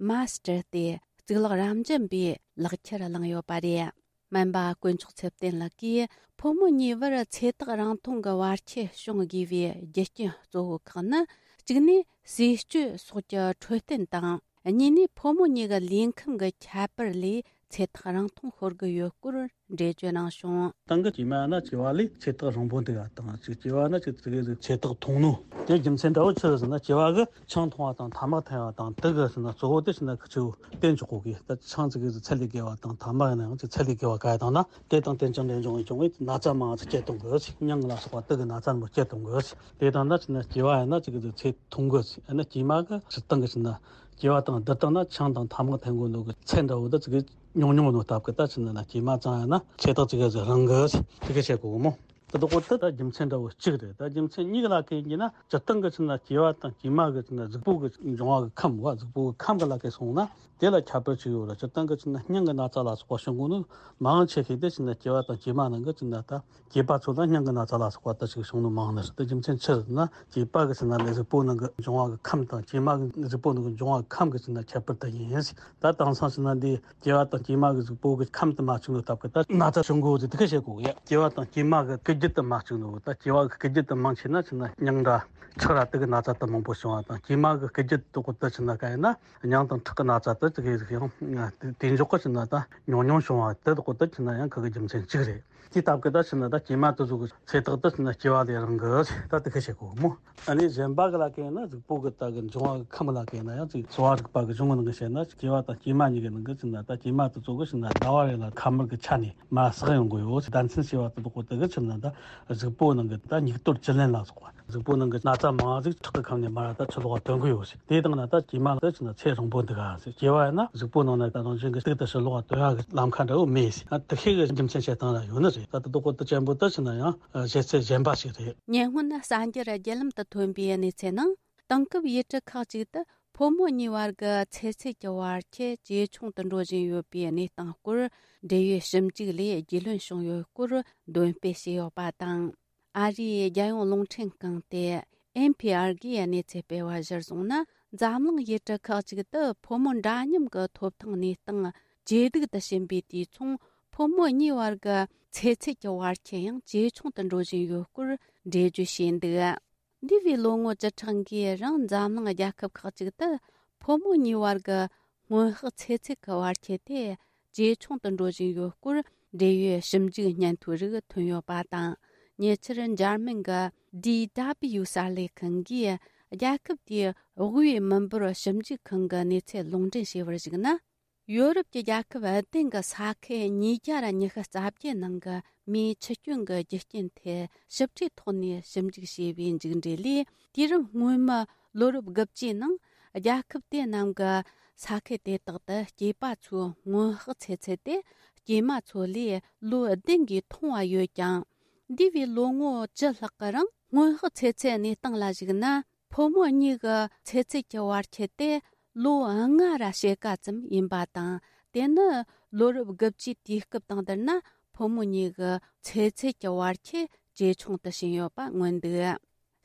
མཱ་སི་ཊར་ཏེ་གཙུག་ལག་རབ་འབྱམས་པའི་ལག་ཁྱེར་བླངས་ཡོད་པ་རེད། སྨན་པ་དཀོན་མཆོག་ཚེ་བརྟན་ལགས་ཀྱིས། ཕོ་མོ་གཉིས་བར་ཚེ་ཐག་རིང་ཐུང་གི་བར་ཁྱད་བྱུང་དགོས་པའི་རྒྱུ་རྐྱེན་གཙོ་བོ་ཁག་ནི། གཅིག་ནས་ཟས་སྤྱོད་སོགས་ཀྱི་འཕྲོད་བསྟེན་དང་། གཉིས་ནས་ཕོ་མོ་གཉིས་ཀྱི་ལུས་ཁམས་ཀྱི་ཁྱད་པར་ལས་ཚེ་ཐག་རིང་ཐུང་ཤོར་གྱི་ཡོད་སྐོར་འགྲེལ་བརྗོད་གནང་བྱུང་། སྟེང་གི་སྐྱེས་མ་ན་སྐྱེས་པ་ལས་ཚེ་ཐག་རིང་པོ་འདུག་པ་དང་། ཅིག་སྐྱེས་པ་ན་ཅིག་ཙི་གེ་ཟིག་ཚེ་ཐག་ཐུང་ནོ། དེ་རྒྱུ་མཚན་འདྲ་བོ་ཆི་རེད་ཟེར་ན། སྐྱེས་པ་གི་ཆང་འཐུང་བ་དང་ཐ་མག་འཐེན་པ་དང་། དེ་གི་ཟེར་ན་གཙོ་བོ་དེ་ཟེར་ན་ཁི་ཆོ་བསྟེན་ཆོག་གོ་གི། ད་ཆང་ཙི་གེ་ཟིག་ཚད་ལས་བརྒལ་བ་དང་། ཐ་མག་ཡིན་ན་ཡང་ཅིག་ཚད་ལས་བརྒལ་བ་ག་ཡ་དང་ན། དེ་དང་དེ་ཅང་འབྲེལ་འབྱུང་བའི་འབྱུང་བའི་ན་ཚ་མང་ཙི་སྐྱེད་གཏོང་གི། མྱང་ལ་སོགས་པ་དེ་གི་ན་ཚ་མང་སྐྱེད་གཏོང་གི། དེ་དང་ན་ཟེར་ན་སྐྱེས་པ་ཡིན་ན་ཅིག་གི་ཟིག་ཚེ་ཐུང་གི། ཡིན་ན་སྐྱེས་མ་གི་སྤྱིར་བཏང་གི་ཟེར་ན། སྐྱེས་པ་དང་བསྡུར་བཏང་ན་ཆང་དང་ཐ་མག་འཐེན་དགོས་ནོ་གི་ཚད་འདྲ་བོ་འདི་ཙི་གེ་ཉུང་ཉུང་ནོ་སྟབས་ཀྱིས། ད་ཕྱིན་ན་སྐྱེས་མ་ཙང་ཡང་ན་ཚེ་ཐག་ཙི་གེ་ཟིག་རིང་གི། དེ་ག་བཤད་གོ་གི་མོ། དེ་དག་གོ་དེ་ད་རྒྱུ་མཚན་འདྲ་བོ་གཅིག་རེད། ད་རྒྱུ་མཚན་གཉིས་ཀ་ལ་གན་གྱི་ན། སྤྱིར་བཏང་གི་ཕྱིན་ན་སྐྱེས་པ་དང་སྐྱེས་མ་གི་ཕྱིན་ན་གཟུགས་པོ་གི་འབྱུང་བ་གི་ཁམས་བ། གཟུགས་པོ་གི་ཁམས་གི་ལ་གན་སོང་ན་དེ་ལ་ཁྱད་པར་ཅིག་ཡོད་རེད། སྤྱིར་བཏང་གི་ཕྱིན་ན་སྙིང་གི་ན་ཚ་ལ་སོགས་པ་བྱུང་གོ་ནོ་མང་ཆེ་ཤོས་དེ་ཕྱིན་ན་སྐྱེས་པ་དང་སྐྱེས་མ་ནང་གི་ཕྱིན་ན། ད་སྐྱེས་པ་ཚོ་ལ་སྙིང་གི་ན་ཚ་ལ་སོགས་པ་ད་ཅིག་བྱུང་ནོ་མང་ནི་རེད། ད་རྒྱུ་མཚན་ཆི་རེད་ན། སྐྱེས་པ་གི་ཕྱིན་ན་ལས་གཟུགས་པོ་ནང་གི་འབྱུང་བ་གི་ཁམས་དང་། སྐྱེས་མ་གི་གཟུགས་པོ་ནང་གི་འབྱུང་བ་གི་ཁམས་གི་ཕྱིན་ན་ཁྱད་པར་དེ་ཡིན། ད་དེང་སང་ཕྱིན་ན་འདི་སྐྱེས་པ་དང་སྐྱེས་མ་གི་གཟུགས་པོ་གི་ཁམས་དེ་མ་གཅིག་ནོ་སྟབས་ཀྱིས་ད་ན་ཚ་བྱུང་གོ་ཟེར། དེ་ག་བཤད་གོ་གི་ཡ། སྐྱེས་པ་དང་སྐྱེས་མ་གི་སྐུལ་རྒྱུ་དེ་མ་གཅིག་ནོ། ད་སྐྱེས་པ་གི་སྐུལ་རྒྱུ་དེ་མང་ཆེ་ན་ཕྱིན་ན་མྱང་འདྲ་ཁྲག་ར་དེ་གི་ན་ཚ་དེ་མང་པོ་བྱུང་བ་དང་། སྐྱེས་མ་གི་སྐུལ་རྒྱུ་དེ་གོ་ད་ཕྱིན་ན་ག་ཡིན་ན། མྱང་དང་ཁྲག་གི་ན་ཚ་དེ་ཙི་གེ་ཟིག་ཡང་དེ་འཇོག་གི་ཕྱིན་ན་ད་ཉུང་ཉུང་བྱུང་བ་དེ་གོ་ད་ཕྱིན་ན་ཡང་ཁ་གི་རྒྱུ་མཚན་གཅིག་རེད། དེ་སྟབས་ཀྱིས་ད་ཕྱིན་ན་ད་སྐྱེས་མ་དེ་ཚོ་གི་ཚེ་ཐག་དེ་ཕྱིན་ན་སྐྱེས་པ་ལས་རིང་གི། ད་དེ་ག་བཤད་གོ་མོ། ཨ་ནི་གཞན་པ་གི་ལ་གན་ན། གཟུགས་པོ་གི་ད་གི་འབྱུང་བ་གི་ཁམས་ལ་གན་ན་ཡང་ཅིག་གསོ་བ་རིག་པ་གི་གཞུང་གི་ནང་གི་བཤད་ན། སྐྱེས་པ་དང་སྐྱེས་མ་གཉིས་ཀྱི་ནང་གི་ཕྱིན་ན། ད་སྐྱེས་མ་དེ་ཚོ་གི་ཕྱིན་ན་ཟླ་བ་རེ་ལ་ཁ་དམར་གི་ཆ་ནས་མར་བསགས་ཡོང་གི་ཡོད། ཟླ་མཚན་ཞེས་པ་དེ་དག་གོ་དེ་གི་ཕྱིན་ན་ད་གཟུགས་པོ་ནང་གི་ད་སྙིགས་དོར་བཅུད་ལེན་ལ་སོགས་པ། གཟུགས་པོ་ནང་གི་ན་ཚ་མང་ཟིག་ཁྲག་གི་ཁམས་ནས་མར་ད་ཕྱི་ལོགས་ཐོན་གི་ཡོད་ཟེར། དེ་དང་ན་ད་སྐྱེས་མ་ལ་ཕྱིན་ན་ཚེ་རིང་པོ་འདུག་ག་ཟེར། སྐྱེས་པ་ཡིན་ན་གཟུགས་པོ་ནང་ན་ད་རང་བཞིན་གྱི་གཏུག་ཏུ་ཕྱི་ལོགས་ཐོན་ཡག་གི་ལམ་ཁ་འདྲ་བོ་མེད་ཟེར། ཨ་དེ་ཤེས་གི་རྒྱུ་མཚན་བཤད་སྟངས་ལ་ཡོད་ནི་རེད། ད་དེ་དག་གོ་དེ་ཅན་པོ་ད་ཕྱིན་ན་ཡང་བཤད་ཚད་གཞན་པ་ཞིག་རེད། ཉེ་སྔོན་གསར་འགྱུར་བརྒྱུད་ལམ་དུ་ཐོན་པའི་གནས་ཚུལ་ནང་། དེང་སྐབས་ཡུལ་གྲུ་ཁག་ཅིག་ཏུ་ཕོ་མོ་གཉིས་བར་གྱི་ཚེ་ཚད་ཀྱི་བར་ཁྱད་ཇེ་ཆུང་དུ་འགྲོ་བཞིན་ཡོད་པའི་གནས་སྟངས་སྐོར། འབྲེལ་ཡོད་ཞིབ་འཇུག་ལས་རྒྱུས་ལོན་བྱུང་ཡོད་སྐོར་འདོན་སྤེལ་བྱས་ཡོད་པ་དང་། ཨ་རིའི་རྒྱལ་ཡོངས་རླུང་འཕྲིན་ཁང་སྟེ་ཨེན་ཕི་ཨར་གིས་གནས་ཚུལ་སྤེལ་བ་གཞིར་བཟུང་ན། འཛམ་གླིང་ཡུལ་གྲུ་ཁག་ཅིག་ཏུ་ཕོ་མོ་འདྲ་མཉམ་གྱི་ཐོབ་ཐང་གནས་སྟངས་ཇེ་སྡུག་ཏུ་ཕྱིན་པའི་དུས་མཚུངས། ཕོ་མོ་གཉིས་བར་གྱི་ཚེ་ཚད་ཀྱི་བར་ཁྱད་ཡང་ཇེ་ཆུང་དུ་འགྲོ་བཞིན་ཡོད་སྐོར་འགྲེལ་བརྗོད་བྱས་འདུག། འདས་པའི་ལོ་ངོ་བཅུ་ཕྲག་འགའི་རིང་འཛམ་གླིང་རྒྱལ་ཁབ་ཁག་ཅིག་ཏུ་ཕོ་མོ་གཉིས་བར་གྱི་སྔོན་དཔག་ཚེ་ཚད་ཀྱི་བར་ཁྱད་དེ་ཇེ་ཆུང་དུ་འགྲོ་བཞིན་ཡོད་སྐོར་འབྲེལ་ཡོད་ཞིབ་འཇུག་སྙན་ཐོ་རིགས་ཐོན་ཡོད་པ་དང་། ཉེ་ཆར་འཇར་མན་གྱི་ཌི་ཌབ་ལིའུ་གསར་ལས་ཁང་གིས་རྒྱལ་ཁབ་དེའི་དབུས་མི་འབོར་ཞིབ་འཇུག་ཁང་གི་གནས་ཚུལ་ལུང་འདྲེན་བྱས་པར་གཞིགས་ན། ཡོ་རོབ་ཀྱི་རྒྱལ་ཁབ་བདུན་གྱི་ས་ཁུལ་ཉིས་བརྒྱ་ཉི་ཤུ་རྩ་བརྒྱད་ནང་གི་མིའི་འཆི་སྐྱོན་གྱི་རྒྱུ་རྐྱེན་ཐད་ཞིབ་ཕྲའི་ཐོག་ནས་ཞིབ་འཇུག་བྱས་པའི་མཇུག་འབྲས་ལས། དུས་རབས་སྔོན་མའི་ལོ་རབས་དགུ་བཅུའི་ནང་རྒྱལ་ཁབ་དེ་རྣམས་ཀྱི་ས་ཁུལ་དེ་དག་ཏུ་སྐྱེས་པ་ཚོའི་སྔོན་དཔག་ཚེ་ཚད་དེ་སྐྱེས་མ་ཚོ་ལས་ལོ་བདུན་གྱིས་ཐུང་བ་ཡོད་ཀྱང་། འདས་པའི་ལོ་ངོ་བཅུ་ལྷག་གི་རིང་སྔོན་དཔག་ཚེ་ཚད་གནས་སྟངས་ལ་གཞིགས་ན། ཕོ་མོ་གཉིས་ཀྱི་ཚེ་ཚད་ཀྱི་བར་ཁྱད་དེ་ལོ་ལྔ་ར་ཕྱེད་ཀ་ཙམ་ཡིན་པ་དང་། དེ་ནི་ལོ་རབས་དགུ་བཅུའི་དུས་སྐབས་དང་བསྡུར་ན། ཕོ་མོ་གཉིས་ཀྱི་ཚེ་ཚད་ཀྱི་བར་ཁྱད་ཇེ་ཆུང་དུ་ཕྱིན་ཡོད་པ་མངོན་འདུག།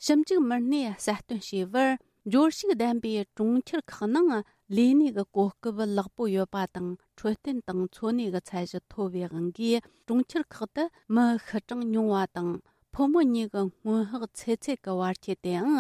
ཞིབ་འཇུག་མི་སྣས་གསལ་སྟོན་བྱས་པར། འབྱོར་ཕྱུག་ལྡན་པའི་གྲོང་ཁྱེར་ཁག་ནང་ ལས་གནས་ཀྱི་གོ་སྐབས་ལེགས་པོ་ཡོད་པ་དང་། འཕྲོད་བསྟེན་དང་འཚོ་གནས་ཀྱི་ཚད་གཞི་མཐོ་བའི་དབང་གིས། གྲོང་ཁྱེར་ཁག་ཏུ་མི་ཤི་གྲངས་ཉུང་བ་དང་། ཕོ་མོ་གཉིས་ཀྱི་སྔོན་དཔག་ཚེ་ཚད་ཀྱི་བར་ཁྱད་དེའང་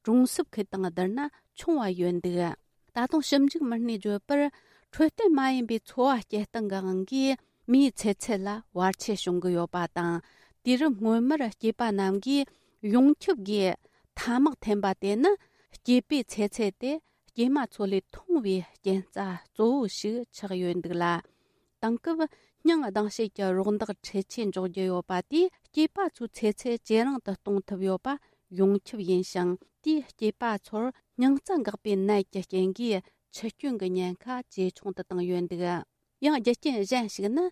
གྲོང་གསེབ་ཁུལ་དང་བསྡུར་ན་ཆུང་བ་ཡོད་འདུག། ད་དུང་ཞིབ་འཇུག་མི་སྣས་བརྗོད་པར། འཕྲོད་བསྟེན་མ་ཡིན་པའི་འཚོ་བ་སྐྱེལ་སྟངས་ཀྱི་དབང་གིས། མིའི་ཚེ་ཚད་ལ་བར་ཆད་བྱུང་གི་ཡོད་པ་དང་། དུས་རབས་སྔོན་མར་སྐྱེས་པ་རྣམས་ཀྱིས་ཡོངས་ཁྱབ་ཀྱིས་ཐ་མག་འཐེན་པ་དེ་ནི། སྐྱེས་པའི་ཚེ་ཚད་དེ་སྐྱེས་མ་ཚོ་ལས་ཐུང་བའི་རྐྱེན་རྩ་གཙོ་བོ་ཞིག་ཆགས་ཡོད་འདུག་ལ། དེང་སྐབས་སྙིང་སྡང་བྱེད་ཀྱི་རོགས་འདེགས་འཕྲུལ་ཆས་འཇོག་རྒྱུ་ཡོད་པ་དེས། སྐྱེས་པ་ཚོའི་ཚེ་ཚད་ཇེ་རིང་དུ་གཏོང་ཐུབ་ཡོད་པ་ཡོངས་ཁྱབ་ཡིན་ཞིང་། དེས་སྐྱེས་པ་ཚོར་སྙིང་རྩ་འགག་པའི་ནད་ཀྱི་རྐྱེན་གྱིས་འཆི་སྐྱོན་གྱི་ཉེན་ཁ་ཇེ་ཆུང་དུ་བཏང་ཡོད་འདུག། ཡང་རྒྱུ་རྐྱེན་གཞན་ཞིག་ནི།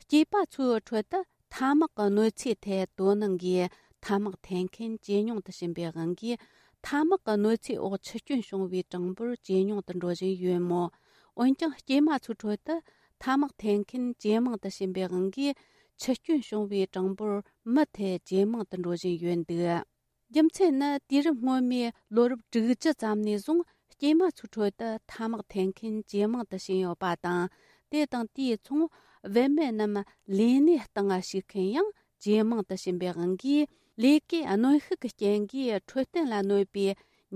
སྐྱེས་པ་ཚོའི་ཁྲོད་དུ་ཐ་མག་གི་གནོད་འཚེའི་ཐད་དོ་སྣང་གིས། ཐ་མག་འཐེན་མཁན་ཇེ་ཉུང་དུ་ཕྱིན་པའི་དབང་གིས། ཐ་མག་གི་གནོད་འཚེའི་འོག་འཆི་སྐྱོན་བྱུང་བའི་གྲངས་འབོར་ཇེ་ཉུང་དུ་འགྲོ་བཞིན་ཡོད་མོད། འོན་ཀྱང་། སྐྱེས་མ་ཚོའི་ཁྲོད་དུ་ཐ་མག་འཐེན་མཁན་ཇེ་མང་དུ་ཕྱིན་པའི་དབང་གིས། འཆི་སྐྱོན་བྱུང་བའི་གྲངས་འབོར་མུ་མཐུད་ཇེ་མང་དུ་འགྲོ་བཞིན་ཡོད་འདུག། རྒྱུ་མཚན་ནི། དུས་རབས་སྔོན་མའི་ལོ་རབས་དྲུག་ཅུ་ཙམ་ནས་བཟུང་། སྐྱེས་མ་ཚོའི་ཁྲོད་དུ་ཐ་མག་འཐེན་མཁན་ཇེ་མང་དུ་ཕྱིན་ཡོད་པ་དང་། དེ་དང་དེའི་མཚུངས། བུད་མེད་རྣམས་ལས་གནས་སྟེང་ཞུགས་མཁན་ཡང་ཇེ་མང་དུ་ཕྱིན་པའི་དབང་གིས། ལས་ཀའི་གནོན་ཤུགས་ཀྱི་རྐྱེན་གྱིས་འཕྲོད་བསྟེན་ལ་གནོད་པའི་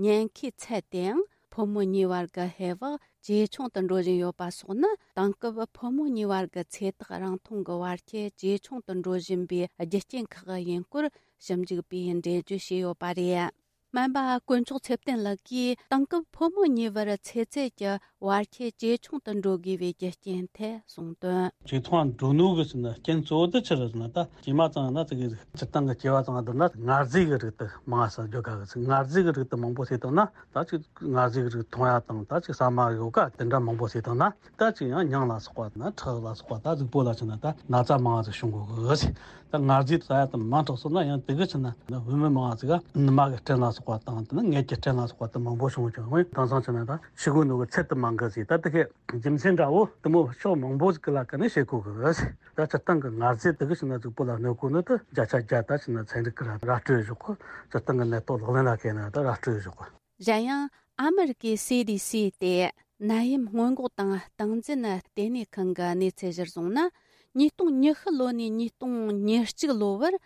ཉེན་ཁའི་ཚད་དེའང་། ཕོ་མོ་གཉིས་བར་གྱི་ཧེ་བག་ཇེ་ཆུང་དུ་འགྲོ་བཞིན་ཡོད་པ་སོགས་ནི། དེང་སྐབས་ཕོ་མོ་གཉིས་བར་གྱི་ཚེ་ཐག་རིང་ཐུང་གི་བར་ཁྱད་ཇེ་ཆུང་དུ་འགྲོ་བཞིན་པའི་རྒྱུ་རྐྱེན་ཁག་ཡིན་སྐོར། ཞིབ་འཇུག་པས་འགྲེལ་བརྗོད་བྱས་ཡོད་པ་རེད། སྨན་པ་དཀོན་མཆོག་ཚེ་བརྟན་ལགས་ཀྱིས། དེང་སྐབས་ཕོ་མོ་གཉིས་བར་ཚེ་ཚད་ཀྱི་བར་ཁྱད་ཇེ་ཆུང་དུ་འགྲོ་དགོས་པའི་རྒྱུ་རྐྱེན་ཐད་གསུངས་དོན། ཇེ་ཐུང་ང་འགྲོ་ནོ་གི་ཟེར་ན་རྐྱེན་གཙོ་བོ་དེ་ཆི་རེད་ཟེར་ན། ད་སྐྱེས་མ་ཚང་ན་ཙི་གེ་སྤྱིར་བཏང་གི་སྐྱེ་བ་ཚང་བསྡུར་ན། མངར་ཟས་ཀྱི་རིགས་དེ་མང་ས་འཇོག་ག་གི་ཟེར། མངར་ཟས་ཀྱི་རིགས་དེ་མང་པོ་ཟས་བཏང་ན། ད་ཅིག་མངར་ཟས་ཀྱི་རིགས་འཐུང་ཡ་དང་། ད་ཅིག་ཟ་མ་ཡོ་ག་དེ་འདྲ་མང་པོ་ཟས་བཏང་ན། ད་ཅིག་ཡང་སྙིང་ལ་སོགས་པ་ན། ཁྲག་ལ་སོགས་པ། ད་གཟུགས་པོ་ལ་ཆི་ན་ད་ན་ཚ་མང་ང་ཟིག་བྱུང་གོ་གི་ཟེར། ད་མངར་ཟས་ཟ་ཡ་དེ་མང་དྲགས་སོང་ན། ཡང་དེ་གི་ཆི་ན་བུད་མེད་མང་ང་ཟིག་ག་ནུ་མ་གི་སྐྲན་ལ་སོགས་པ་དང་། དེ་ནི་མངལ་གྱི་སྐྲན་ལ་སོགས་པ་དེ་མང་པོ་བྱུང་བྱུང་། དེང་སང་ཆི་ན་ད་ཤི་གོ་ནོ་གི་ཚད་དེ་མང་གི་ཟིག། ད་དེ་གི་རྒྱུ་མཚན་འདྲ་བོ་དེ་མོ་ཕྱོགས་མང་པོ་ཟིག་གི་ལ་ཀ་ནས་བཤད་གོ་གི་ཟེར། ད་སྤྱིར་བཏང་གི་མངར་ཟས་དེ་གི་ཆི་ན་གཟུགས་པོ་ལ་གནོད་གོ་ནི་དེ་བརྒྱ་ཆ་བརྒྱ་ད་ཆི་ན་ཚན་རིག་གི་ར་ར་སྤྲོད་བཞག་གོ། སྤྱིར་བཏང་གི་ནད་ཐོག་ལག་ལེན་ལ་བཀལ་ན་ད་ར་སྤྲོད་བཞག་གོ། གཞན་ཡང་། ཨ་མི་རི་ཀའི་སི་ཌི་སི་སྟེ། ནད་ཡམས་སྔོན་འགོག་དང་སྟངས་འཛིན་ལྟེ་གནས་ཁང་གི་གནས་ཚུལ་གཞིར་བཟུང་ན། ཉིས་སྟོང་ཉི་ཤུ་ལོ་ནས་ཉིས་སྟོང་ཉེར་གཅིག་ལོ་བར།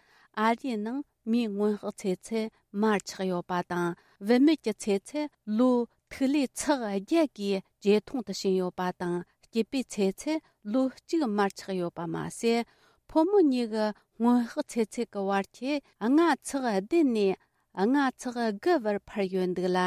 ཨ་རིའི་ནང་མིའི་སྔོན་དཔག་ཚེ་ཚད་མར་ཆག་ཡོད་པ་དང་། བུད་མེད་ཀྱི་ཚེ་ཚད་ལོ་ཐིག་ལེ་ཚེག་བརྒྱད་ཀྱིས་ཇེ་ཐུང་དུ་ཕྱིན་ཡོད་པ་དང་། སྐྱེས་པའི་ཚེ་ཚད་ལོ་གཅིག་མར་ཆག་ཡོད་པ་མ་ཟད། ཕོ་མོ་གཉིས་ཀྱི་སྔོན་དཔག་ཚེ་ཚད་ཀྱི་བར་ཁྱད་ལྔ་ཚེག་བདུན་ནས་ལྔ་ཚེག་དགུ་བར་འཕར་ཡོད་འདུག་ལ།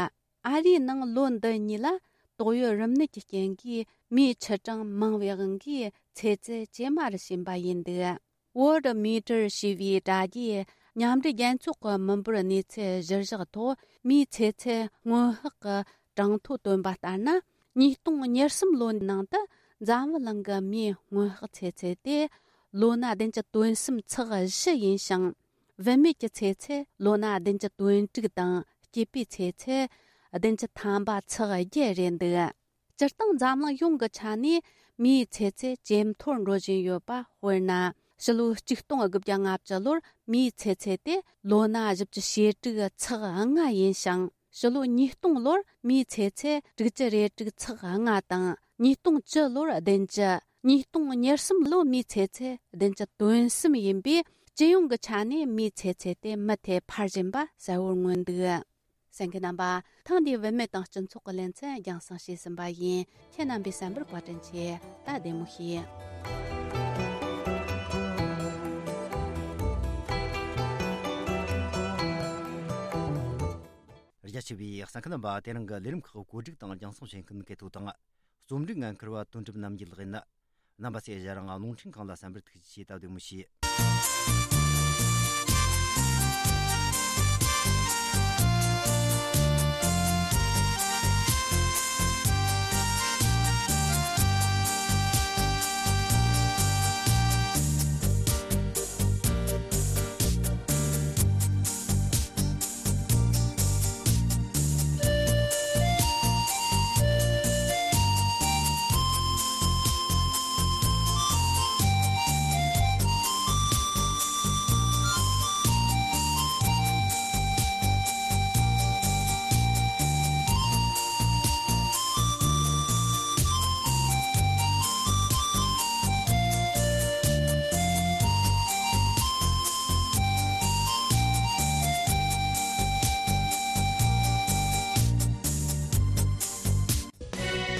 ཨ་རིའི་ནང་ལོ་འདི་གཉིས་ལ་ཏོག་དབྱིབས་རིམས་ནད་ཀྱི་རྐྱེན་གྱིས་མིའི་འཆི་གྲངས་མང་བའི་དབང་གིས་ཚེ་ཚད་ཇེ་དམའ་རུ་ཕྱིན་པ་ཡིན་འདུག། Worldometer ཞེས་པའི་དྲ་རྒྱའི་མཉམ་འབྲེལ་རྒྱལ་ཚོགས་ཀྱི་མི་འབོར་གནས་ཚུལ་གཞིར་བཞག་ཐོག། མིའི་ཚེ་ཚད་སྔོན་དཔག་གི་གྲངས་ཐོ་བཏོན་པ་ལྟར་ན། ཉིས་སྟོང་ཉེར་གསུམ་ལོའི་ནང་དུ་འཛམ་བུ་གླིང་གི་མིའི་སྔོན་དཔག་ཚེ་ཚད་དེ་ལོ་ན་བདུན་ཅུ་དོན་གསུམ་ཚེག་བཞི་ཡིན་ཞིང་། བུད་མེད་ཀྱི་ཚེ་ཚད་ལོ་ན་བདུན་ཅུ་དོན་དྲུག་དང་། སྐྱེས་པའི་ཚེ་ཚད་བདུན་ཅུ་ཐམ་པ་ཚེག་བརྒྱད་རེད་འདུག། སྤྱིར་བཏང་འཛམ་གླིང་ཡོངས་ཀྱི་ཆ་ནས་མིའི་ཚེ་ཚད་ཇེ་མཐོར་འགྲོ་བཞིན་ཡོད་པ། དཔེར་ན། ཕྱི་ལོ་ཆིག་སྟོང་དགུ་བརྒྱ་ལྔ་བཅུ་ལོར་མིའི་ཚེ་ཚད་དེ་ལོ་ན་བཞི་བཅུ་ཞེ་དྲུག་ཚེག་ལྔ་ཡིན་ཞིང་། ཕྱི་ལོ་ཉིས་སྟོང་ལོར་མིའི་ཚེ་ཚད་དྲུག་ཅུ་རེ་དྲུག་ཚེག་ལྔ་དང་། ཉིས་སྟོང་བཅུ་ལོར་བདུན་ཅུ། ཉིས་སྟོང་ཉེར་གསུམ་ལོ་མིའི་ཚེ་ཚད་བདུན་ཅུ་དོན་གསུམ་ཡིན་པས། སྤྱི་ཡོངས་ཀྱི་ཆ་ནས་མིའི་ཚེ་ཚད་དེ་མུ་མཐུད་འཕར་བཞིན་པ་གསལ་བོར་མངོན་འདུག། གསན་མཁན་རྣམ་པ། ཐེངས་འདིའི་བུད་མེད་དང་སྤྱི་ཚོགས་ཀྱི་ལེ་ཚན་རྒྱང་སྲིང་བྱས་ཟིན་པ་ཡིན། ཁྱེད་རྣམ་པའི་གསན་པར་བཀའ་དྲིན་ཆེ། ད་བདེ་མོ་བྱོས། རྒྱ་ཆེ་བའི་གསན་མཁན་རྣམ་པ། དེ་རིང་གི་ལས་རིམ་ཁག་བཀོད་སྒྲིག་དང་རྒྱང་སྲིང་བྱེད་མཁན་གལ་ཐོ་དང་། རྩོམ་སྒྲིག་འགན་འཁུར་བ་དོན་གྲུབ་རྣམ་རྒྱལ་ལགས་ཡིན། རྣམ་པ་ཚོས་ང་རང་རླུང་འཕྲིན་ཁང་ལ་གསན་པར་ཐུགས་རྗེ་ཆེ། ད་བདེ་མོ་བྱོས།